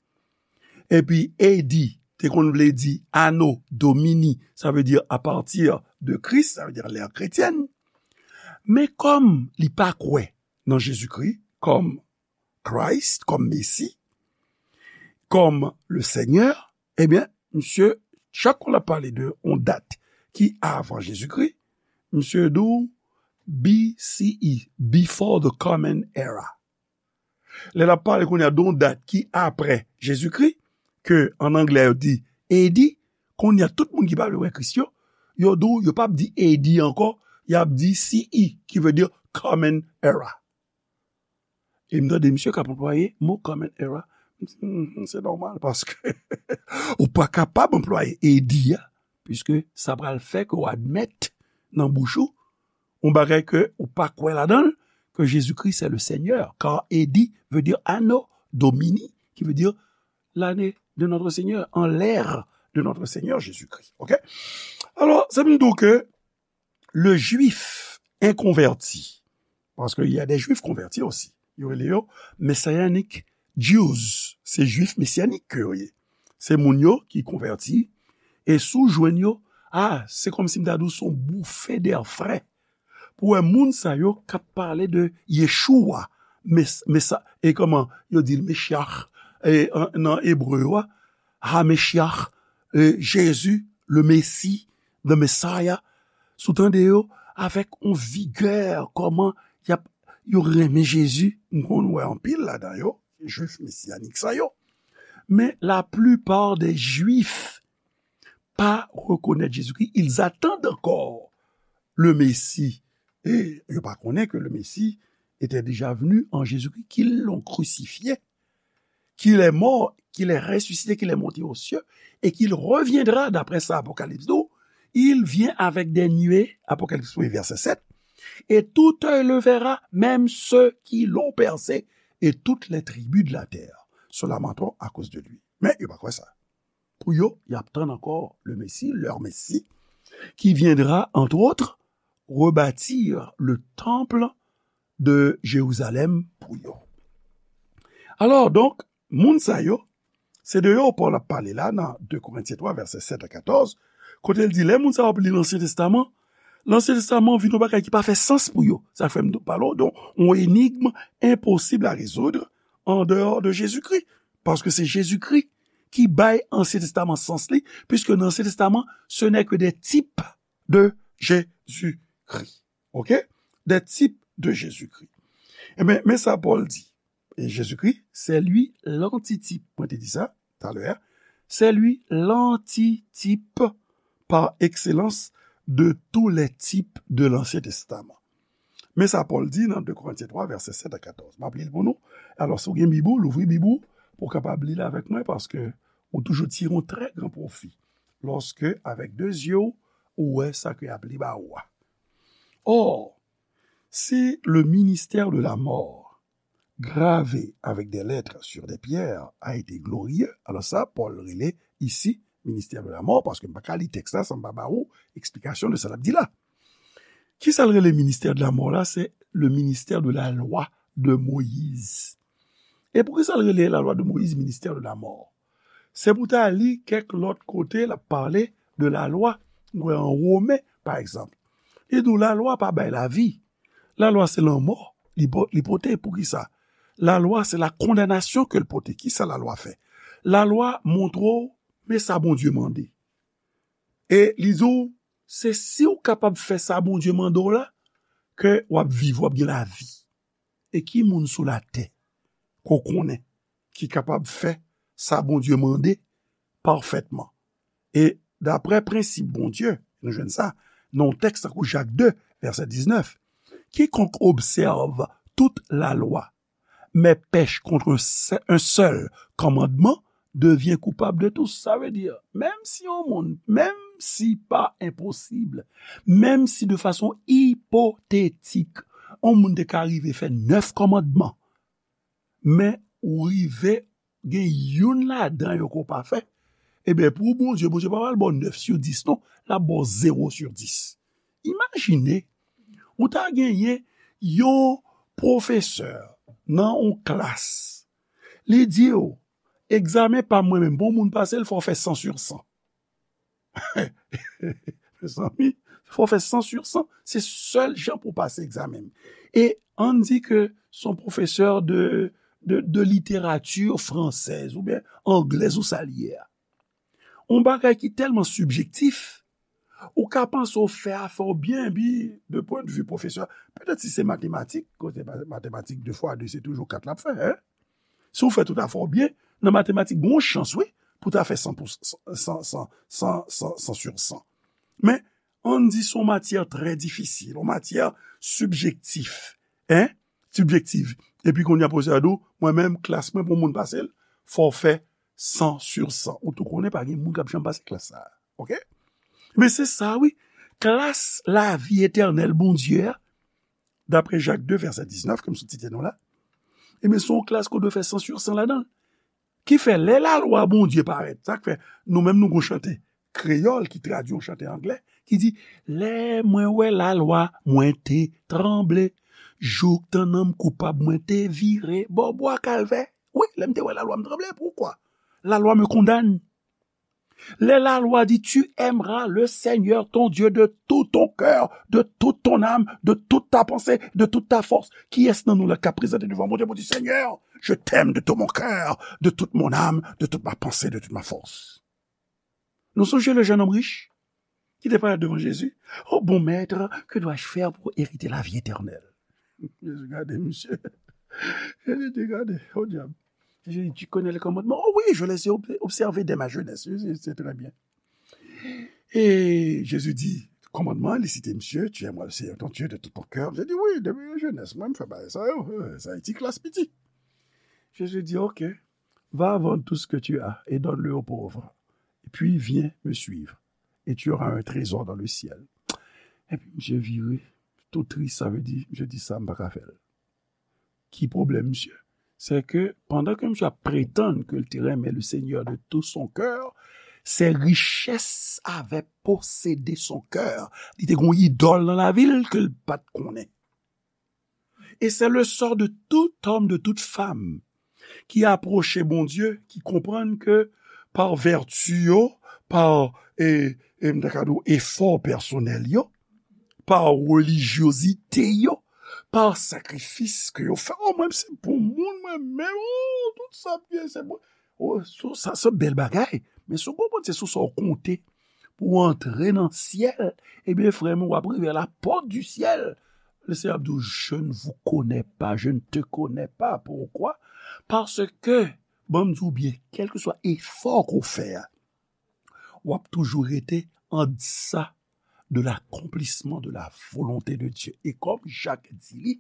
epi A D te konn vle di Anno Domini, sa vle di à partir de Christ, sa vle di l'ère chrétienne. Men kòm li pa kwè nan Jezikri kòm Christ, kòm Mesi, kòm le Seigneur, ebyen, misye, chak fwa l ap pale de yon dat ki avan Jezikri, misye di w B C E, before the common era. Lè l ap pale kounye a de yon dat ki apre Jezikri, ke an anglè yo di A D, kounye a tout moun ki pa vle wè Kris yo, yo di w, yo p ap di A D ankò, y ap di C E, ki vle di common era. E m tande misye k ap anplwaye mo common era. M di, "Hmm, se nòmal, paske ou pa kapab anplwaye A D a, piske sa pral fè ke w admèt nan bouch ou yon bagay ke ou pa kwè ladan l, ke Jezikri se le Seigneur, car A D veut dire Anno Domini, qui veut dire l'année de notre Seigneur, en l'ère de notre Seigneur Jésus-Christ." Oke? Alò, sa vle di ke le Jwif enkonvèti, paske y a des Juifs convertis aussi, yo rele yo Messianic Jews, se Jwif mesyanik ke yo ye. Se moun yo ki konvèti, e si w jwenn yo, a, se kòmsi m ta di w se yon bouffée d'air frais. Pou wè moun sa yo k ap pale de Yeshua, Mes-, Mesa-, e kòman yo di l, Meshyach, e, an, nan ebre yo a, Ha Meshyach, e, Jezi, le Mesi, the Messiah, si w tande yo avèk yon vigè, kòman y ap, yo renmen Jezi, m konn wè anpil ladan yo, Jwif mesyanik sa yo. Men la plupart des Juifs pa rekonèt Jezikri, ils attendent encore le Messie. E yo pa konnen ke le Messie était déjà venu en Jésus-Christ, qu'ils l'ont crucifié. qu'il est mort, qu'il est ressuscité, qu'il est monté aux cieux, et qu'il reviendra, d'après ça, Apocalypse douze, il vient avec des nuées, Apocalypse premier, verset sept, et tout œil le verra, même ceux qui l'ont percé, et toutes les tribus de la terre se lamenteront à cause de lui. Men yo pa kwè sa. Pou yo, y ap tann ankò le Messie, leur Messie, qui viendra, entre autres, rebâtir le temple de Jérusalem pou yo. Alò, donk, moun sa yo, se de yo Pòl ap pale la nan de Korentyen twa, vèsè sèt a katòz, kote l di, lè moun sa yo ap li Lansyen Testaman, Lansyen Testaman vin yon bagay ki pa fè sans pou yo. Sa fè m pale w de yon enigm enposib a rezoud an deyò de Jezikri. Paske se Jezikri ki bay Ansyen Testaman sans li, puisque nan Ansyen Testaman, ce n'est que des types de Jésus-Christ. OK? Des types de Jésus-Christ. Ebyen, men sa Pòl di. Et Jésus-Christ, c'est lui l'antitype. Mwen te di sa talè. C'est lui l'antitype par excellence de tous les types de l'Ancien Testament. Men sa Pòl di nan de Korentyen twa, vèsè sèt a katòz. M ap li l pou nou. Alò, si w gen Bib ou, louvri Bib ou, pou w kapab li l avèk mwen, paske ou toujou tire yon trè gran pwofi lòske, avèk de zye w, ou wè sa ke y ap li ba ou a. Or, si le ministère de la mort gravé avec des lettres sur des pierres a été glorieux. Alò sa, Pòl rele isi ministè de la mò, paske m pa ka li tèks la san m pa ba ou eksplikasyon de sa l ap di la. Ki sa l rele ministè de la mò la? Se le ministè de la lwa de Moyiz. E poukisa l rele la lwa de Moyiz ministè de la mò? Se pou ta li kèk lòt kote l ap pale de la lwa. Nou wè an Women, pa egzanp. Li di w la lwa pa bay lavi. La lwa se lanmò li po-, li pote. Poukisa? La lwa se la kondanasyon ke l pote. Kisa la lwa fè? La lwa montre w, men sa Bondye mande. E li di w, se si w kapab fè sa Bondye mande w la, ke w ap viv, w ap gen lavi. E ki moun sou latè ke w konnen ki kapab fè sa Bondye mande pafètman? E daprè prensip Bondye, nou jwenn sa nan yon tèks tankou Jak de, vèsè diznèf, quiconque observe toute la loi, mais pèche contre un se-, un seul commandement, devient coupable de tous. Sa vle di, menm si yon moun, menm si pa enposib, menm si de fason ipotetik, yon moun te ka rive fè nèf kòmandman, men ou rive gen youn ladan yo ke w pa fè, ebyen, pou Bondye, Bondye pa pral ba w nèf sou dis, non, l ap ba w zewo sou dis. Imajine, ou ta genyen yon pwofesè nan yon klas, li di w, egzamen pa m mwen menm, pou yon moun pase l, fò w fè san sou san. Mezanmi, fò w fè san sou san. Se sèl jan pou w pase egzamen. E ann di ke se yon pwofesè de, de, de literati fransèz oubyen anglèz ou sa l ye a. Yon bagay ki tèlman sibjektif, ou ka panse w fè afè w byen, epi de pwen de vi pwofesè, petèt si se matematik, kote ma-, matematik de fwa de se toujou kat l ap fè, en? Si w fè tout afè w byen, nan matematik, gen yon chans, wi, pou w ta fè san pou san, san, san, san, san, san sou san. Men, ann di se yon matyè trè difisil, yon matyè sibjektif, en? Sibjektif. Epi kounye a pwofesè a di w, mwen menm, klas mwen, pou yon moun pase l, fò w fè san sou san. Ou tou konnen pa gen moun k ap janm pase klas sa a. OK? Men se sa, wi. Klas lavi etènèl Bondye a, daprè Jak de, vèsè diznèf, ke m sot site nou la, ebyen, se yon klas ke w dwe fè san sou san ladan l. Ki fè, lè lalwa Bondye parèt, sa k fè, nou menm nou gon chante kreyòl ki tradui yon chante anglè, ki di, lè mwen wè lalwa, mwen te tranble, jouk tann nan m koupab, mwen te vire bò bwa Kalvè. Wi, lè m te wè lalwa, m tranble. Poukwa? La loi me condamne. Lè lalwa di, tu aimeras le Seigneur ton Dieu de tout ton cœur, de toute ton âme, de toute ta pensée, de toute ta force. Kiyès nan nou la k ap prezante devan Bondye pou di, Seigneur, je t'aime de tout mon cœur, de toute mon âme, de toute ma pensée, de toute ma force? Nou sonje le jeune homme riche ki te parèt devan Jezi. Oh bon maître, que dois-je faire pour hériter la vie éternelle? Jezi gade misye. Jezi di, gade, oh diab. Jezi di, tu connais les commandements? Oh oui, je les ai ob-, observés dès ma jeunesse. Jezi di, c'est très bien. E Jezi di, kòmandman, li site misye, tu aimeras le Seigneur ton Dieu de tout ton cœur. Misye di, wi, depi jenès mwen, m fè bagay sa yo. Eh, sa e ti klas piti. Jezi di, ok. va vendre tout ce que tu as et donne-le aux pauvres. Et puis viens me suivre. Et tu auras un trésor dans le ciel. Epi misye vire, tou tris, sa vle di, misye di sa, m pa ka fè l. Ki pwoblèm misye? Se ke pandan ke misye ap pretann ke l te renmen le Seigneur de tout son cœur, ses richesses avaient possédé son cœur. Li te gen yon idòl nan lavi l ke l pa t konnen. Et c'est le sort de tout homme, de toute femme qui a approché Bondye, ki konprann ke pa vèti yo, pa e, e, m ta ka di w, efò pèsonèl yo, pa relijyozite yo, pa sakrifis ke yo fè. Oh, mwen, se pou moun, mwen menm, oh, tout sa m gen, se pou. Oh, so, sa, se bèl bagay. Men si w konprann, se sou sa w konte pou w antre nan syèl, ebyen, frè m, w ap rive a la pòt di syèl. Le Seigneur ap di w, je ne vous connais pas, je ne te connais pas. Pourquoi? Parce que, ban m di w byen, kèlkeswa efò ke w fè a, w ap toujou rete an desa de l'accomplissement de la volonté de Dieu. E kòm Jak di li,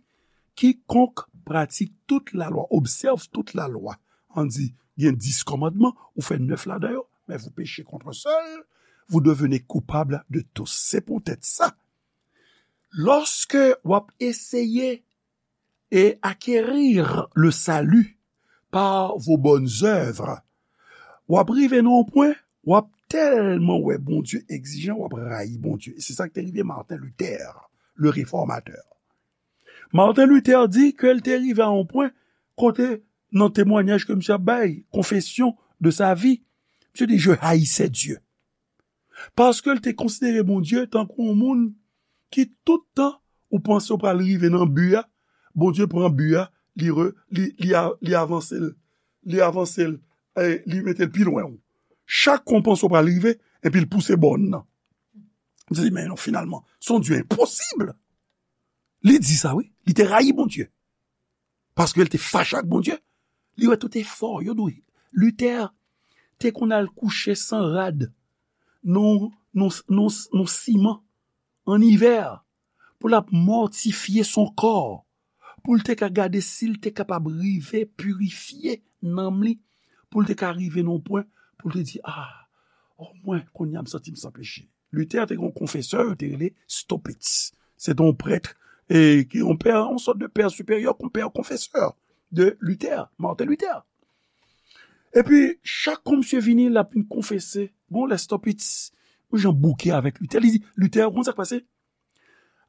quiconque pratique toute la loi, observe toute la loi. An di, gen dis kòmandman, ou fè nèf ladan yo, mais vous péchez contre un seul, vous devenez coupable de tous. Se poutèt sa, lòske w ap eseye e acquérir le salut par vos bonnes œuvres, w ap rive nan yon pwen, w ap tèlman wè Bondye egzijan, w ap rayi Bondye. E se sa k te rive Martin Luther, le réformateur. Martin Luther di ke l te rive a yon pwen kote, nan temwanyaj ke misye ap bay, confession de sa vie, misye di, je haïssais Dieu. Paske l te konsidere Bondye tankou yon moun ki tout tan ou panse w pral rive nan bi a, Bondye pran bi a, li, re, li, li, a, li avanse l, li avanse l, e li mete l pi lwen w. Chak kou w panse w pral rive, epi l pouse bòn nan. M di, men non, finalman, se yon Dye enposib. Li di sa, wi. Li te rayi Bondye. Paske l te fache ak Bondye. Li wè tout efò yo dwe. Luther te konn al kouche san rad nan, nan, nan, nan siman an ivè pou l ap mòtifye son kò, pou l te ka gade si l te kapab rive pirifye nanm li, pou l te ka rive nan yon pwen pou l te di, a, omwen kounye a m santi m san peche. Luther te gen yon konfesè, yo te rele Staupitz. Se te yon prèt, e, ki yon pè, yon sòt de pè siperyè, yon pè konfesè de Luther, Martin Luther. Epi, chak kou misye vini, l ap vin konfese. Gon lè Staupitz, yon jan bouke avèk Luther, li di, Luther, ou konn sa k pase?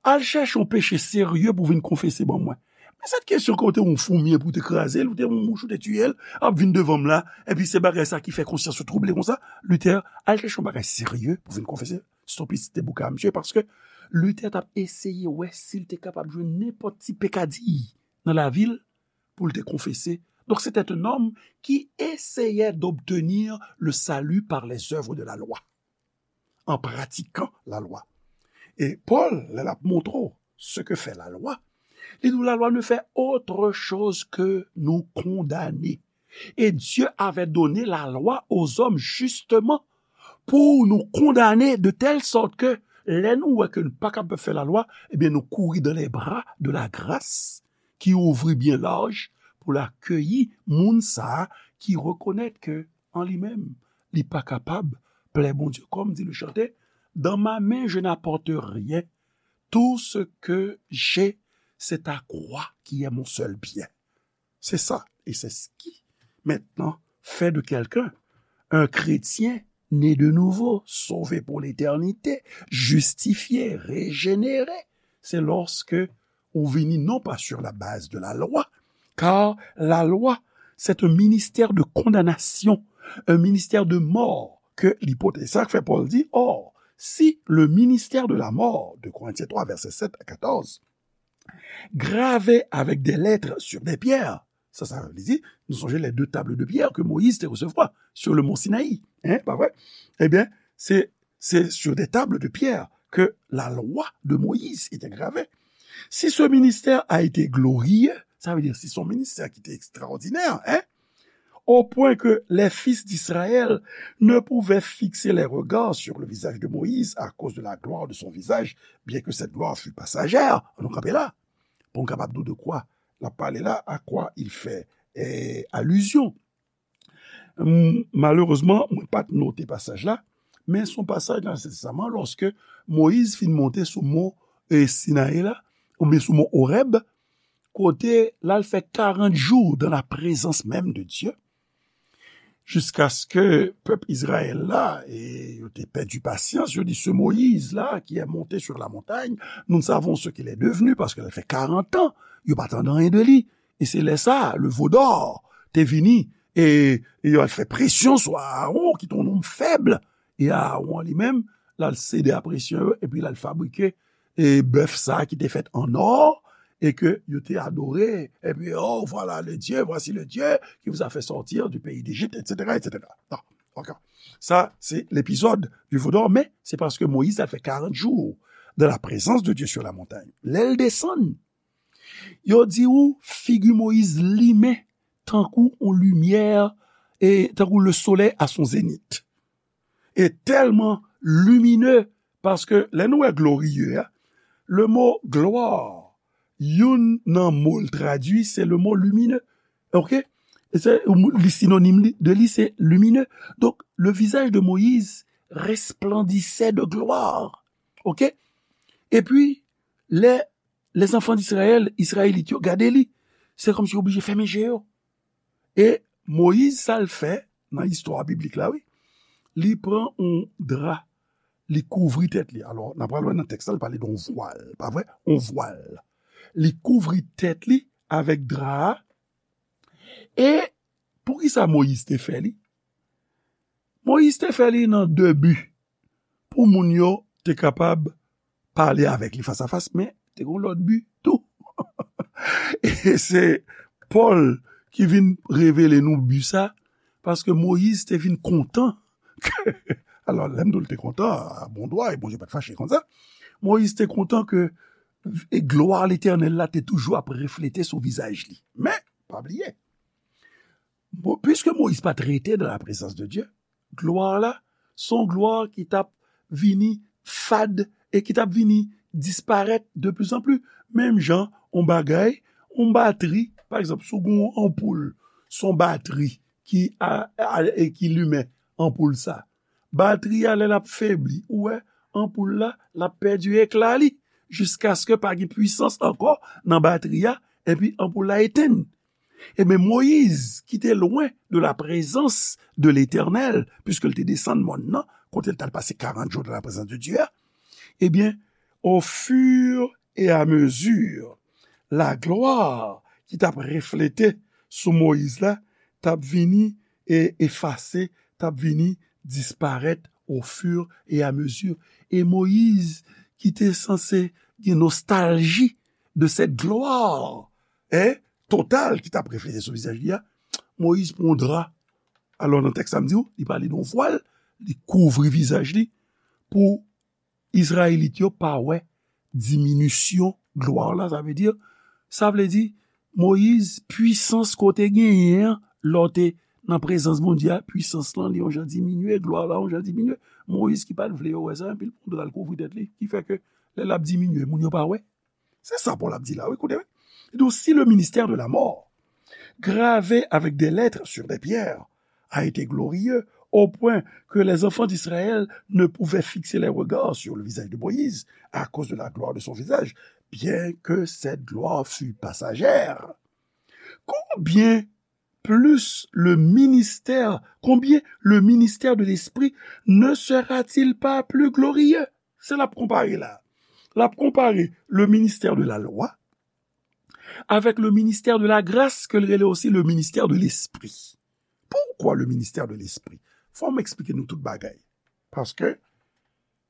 Al chèche yon peche serye pou vin konfese ban mwen. Men sèt kesyon ke w te yon foumi pou te kraze l, ou te yon mouch ou te tiye l, ap vin devan m la, epi se bagay sa ki fè konsyans ou twouble konsa. Luther, al chèche yon bagay serye pou vin konfese. Staupitz te bouke a misye, paske Luther t ap eseye wè si l te kapab jwenn nenpòt ti pekadi nan lavi l pou l te konfese. Donc, c'était un homme qui essayait d'obtenir le salut par les œuvres de la loi, en pratiquant la loi. E Pòl, lè l ap montre w ce que fait la loi, li di w, la loi ne fait autre chose que nous condamner. Et Dieu avait donné la loi aux hommes justement pour nous condamner de telle sorte que lè nou wè ke nou pa kapab fè lalwa, ebyen nou kouri dans les bras de la grâce ki ouvri byen laj pou l akeyi moun sa a ki rekonèt ke an li menm, li pa kapab plè Bondye. Kòm di le chanteur, dans ma main, je n'apporte rien. Tout ce que j'ai, c'est ta croix qui est mon seul bien. C'est ça. Et c'est ce qui, maintenant, fait de quelqu'un un chrétien né de nouveau, sauvé pour l'éternité, justifié, régénéré. C'est lorsque ou vini non pas sur la base de la loi, car la loi, c'est un ministère de condamnation, un ministère de mort que li pote. Sa k fè Pòl di, or, si le ministère de la mort, deux Corinthiens trois, versets sept à quatorze, gravé avec des lettres sur des pierres. Sa, sa vle di, nou sonje les deux tables de pierre que Moïse te resevwa sur le mont Sinaï. Hein, pa vre? Ebyen, se, se sur des tables de pierre que la loi de Moïse était gravée. Si ce ministère a été glorieux, sa vle di, si son ministè ki te ekstraòdinè, hein, au point que les fils d'Israël ne pouvaient fixer les regards sur le visage de Moïse à cause de la gloire de son visage, bien que cette gloire fût passagère. Nou kanpe la. Pou n kapab di w de kwa l ap pale la, à quoi il fait, eh, allusion. M, malerezman, mwen pa t note pasaj la, men se yon pasaj nan Ansyen Testaman, lòske Moyiz fin monte sou mont, e, Sinayi la, oubyen sou mont Orèb, kote l al fè karant jou dans la présence même de Dieu, jiskaske pèp Izrayèl la, e, yo te pèdi pasyans, yo di, ce Moïse-là qui est monté sur la montagne, nous ne savons ce qu'il est devenu, paske l fè karant an, yo pa tande anyen de li. E se lè sa, le veau d'or te vini, e, e yo al fè presyon sou Aaron, ki te yon nonm fèb. E Aaron li menm, l al sede a presyon yo, epi l al fabrike, e, bèf sa ki te fèt an or, e ke yo te adore, epi, oh, voilà le Dieu, voici le Dieu qui vous a fait sortir du pays d'Égypte, et cetera, et cetera. Non, ok. Sa, se lepizòd du veau d'or, men se paske Moyiz al fè karant jou dans la présence de Dieu sur la montagne. Lè l desann, yo di ou figi Moyiz limen tankou yon limyè, e tankou le soleil à son zénith. E tèlman limine, paske lè nou wè glorieux a, le mo gloire, youn nan mo l tradui, se le mo lumineux. Ok? E se, li sinonim li, de li, se lumineux. Donc, le visage de Moïse resplendissait de gloire. Ok? Epi, lè les enfants d'Israël, Izrayelit yo, gade li, se kòmsi yo oblije fèmen je yo. E Moyiz, sa l fè nan istwa biblik la, wi, li pran yon dra, li kouvri tèt li. Alò, n a pral wè nan tèks la, li pale de yon vwal, pa vre? Yon vwal. Li kouvri tèt li avèk dra a. E poukisa Moyiz te fè li? Moyiz te fè li nan de bi. Pou moun yo te kapab pale avèk li fas a fas, men te gen yon lòt bi tou. E se Pòl ki vin revele nou bi sa, paske Moyiz te vin kontan ke, alò, lè m di w l te kontan, a bon dwa, e Bondye pa t fache konsa. Moyiz te kontan ke, e glwa Letènèl la te toujou ap reflete sou vizaj li. Men, pa bliye, Mo-, puiske Moyiz pa t rete dans la présence de Dieu, glwa la, se yon glwa ki t ap vini fad e ki t ap vini disparèt de plus en plus. Menm jan, yon bagay, yon batri, pa egzanp, si w gen yon anpoul, se yon batri ki a, a, e ki limen anpoul sa. Batri a, lè l ap febli, ou wè, anpoul la, l ap pèdi ekla li, jiskaske pa gen pwisans ankò nan batri a, epi anpoul la etenn. Ebyen, Moyiz, ki te lwen de la prezans de Letènèl, piske l te desann mòn nan, kote l t al pase karant jou dan la prezans de Dye a, ebyen, au fur et à mesure, la glwa ki t ap reflete sou Moyiz la, t ap vini e efase, t ap vini disparèt au fur et à mesure. E Moyiz, ki te sanse gen nostalji de cette gloire, hein, total ki t ap reflete sou vizaj li a, Moyiz pran yon dra. Alò, nan tèks la, m di w, li pale de yon vwal, li kouvri vizaj li pou Izrayelit yo pa wè diminisyon glwa la. Sa vle di, sa vle di, Moyiz, pwisans ke w te genyen an, lè w te nan prezans Bondye a, pwisans lan, li yon jan diminye, glwa la yon jan diminye. Moyiz ki pa t vle yo wè sa, epi l pran dra l kouvri tèt li, ki fè ke lè l ap diminye, moun yo pa wè. Se sa Pòl ap di la, wi, koute, wi. Li di, si le ministère de la mort, gravé avec des lettres sur des pierres, a été glorieux, au point que les enfants d'Israël ne pouvaient fixer les regards sur le visage de Moïse à cause de la gloire de son visage, bien que cette gloire fût passagère. Combien plus le ministère, combien le ministère de l'Esprit ne sera-t-il pas plus glorieux? Se l ap konpare la. L ap konpare le ministère de la loi avec le ministère de la grâce, ke l rele osi le ministère de l'esprit. Poukwa le ministère de l'esprit? Fò m eksplike nou tout bagay. Paske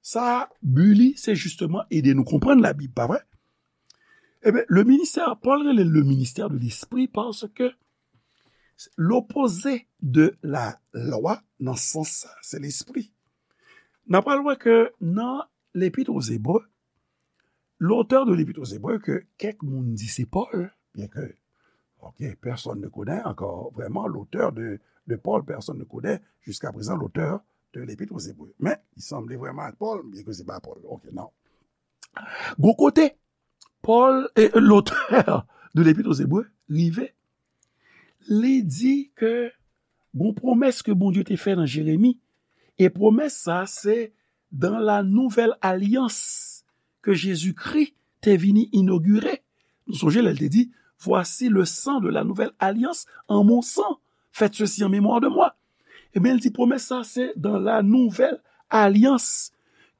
sa, bi li, se jisteman ede nou konprann Labib, pa vre? Ebyen, le ministère, Pòl rele le ministère de l'esprit paske l'opposé de la loi, nan sans sa, se lespri. N a pral wè ke nan Lepit aux Hébreux, l'auteur de l'Épître aux Hébreux, ke kèk moun di se Pòl, bien que, ok, personne ne connaît encore vraiment l'auteur de, de Paul, personne ne connaît jusqu'à présent l'auteur de l'Épître aux Hébreux. Men, li sanble vrèman ak Pòl, bien que se pa Pòl. Ok, non. Gon kote, Pòl, e, l'auteur de l'Épître aux Hébreux, rive, li di ke Gon pwomès ke Bondye te fè nan Jeremi, e pwomès sa se dans la nouvelle alliance que Jésus-Christ te vini inogire. Nou sonje lè l te di, voici le sang de la nouvelle alliance en mon sang. Faites ceci en mémoire de moi. Ebyen, l di pwomès sa se dans la nouvelle alliance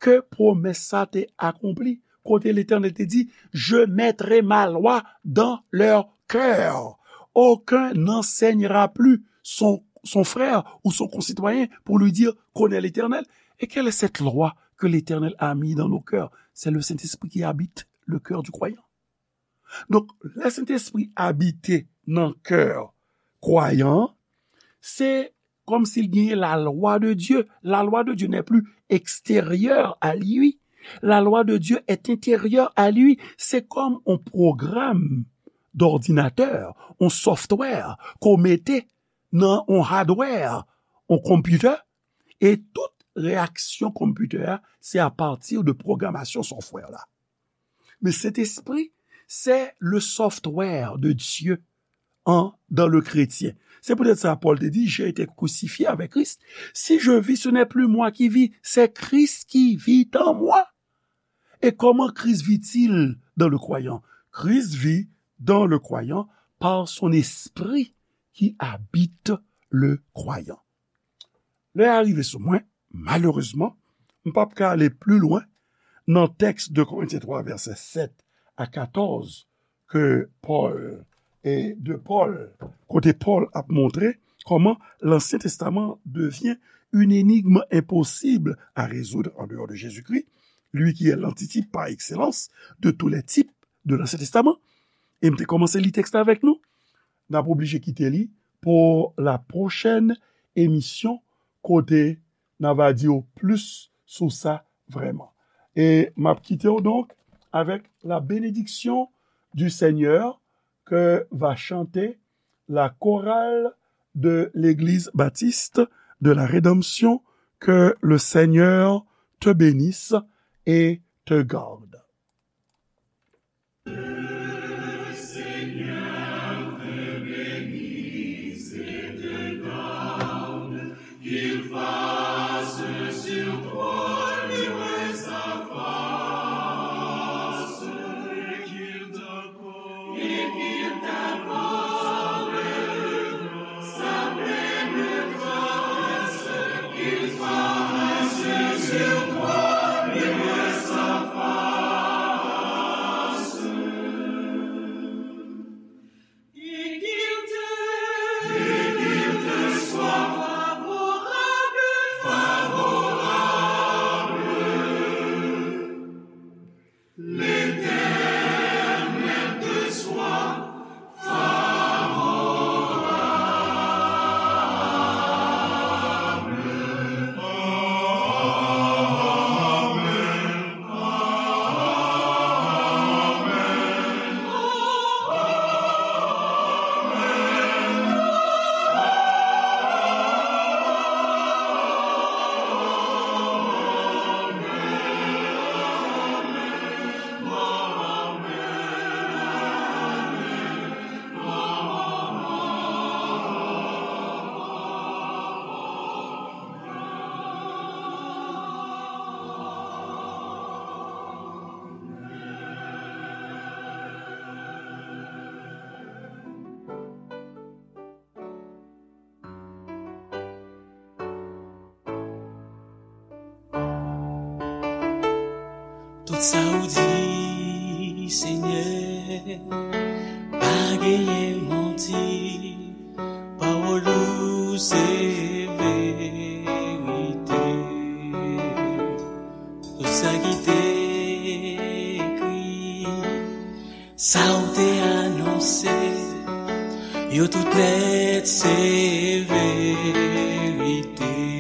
ke pwomès sa te akonpli. Kote Letènèl te di, je mettrai ma loi dans leur cœur. Aucun n'enseignera plus son, son frère ou son concitoyen pour lui dire, connais l'Éternel. Et quelle est cette loi que l'Éternel a mis dans nos cœurs? C'est le Saint-Esprit qui habite le cœur du croyant. Donk, lè Sentespri abite nan kè kwayan an, se kòmsi l genyen la loi de Dieu. La loi de Dieu n'est plus extérieure à lui. La loi de Dieu est intérieure à lui. Se kòm yon pwogram dòdinatè, yon software ke w mete nan yon hardware, yon konpitè, e tout reyaksyon konpitè a, se apati de pwogramasyon software la. Men Sentespri, c'est le software de Dieu en, dans le chrétien. C'est peut-être ça, Paul te dit, j'ai été crucifié avec Christ. Si je vis, ce n'est plus moi qui vis, c'est Christ qui vit en moi. Et comment Christ vit-il dans le croyant? Christ vit dans le croyant par son esprit qui habite le croyant. Lè a rive sou mwen, malerezman, m p ap ka ale pli lwen nan tèks de Korentyen twa, vèsè sèt a katòz, ke Pòl, e de Pòl, kote Pòl ap montre kòman Lansyen Testaman devyen une énigme impossible à résoudre en dehors de Jésus-Christ, lui qui est l'antitype par excellence de tous les types de l'Ancien Testament. E m te kòmanse li tèks la avèk nou. N ap oblije kite li pou la pwochèn emisyon kote n a va di w plis sou sa vrèman. E m ap kite w donk avèk la bénédiction du Seigneur que va chanter la chorale de l'Église baptiste de la Rédemption. Que le Seigneur te bénisse et te garde. Tout sa ou di, Senyè, pa genyen manti. Pawòl ou se verite. Tout sa ki te ekri, sa ou te anonse, yo tout nèt se verite.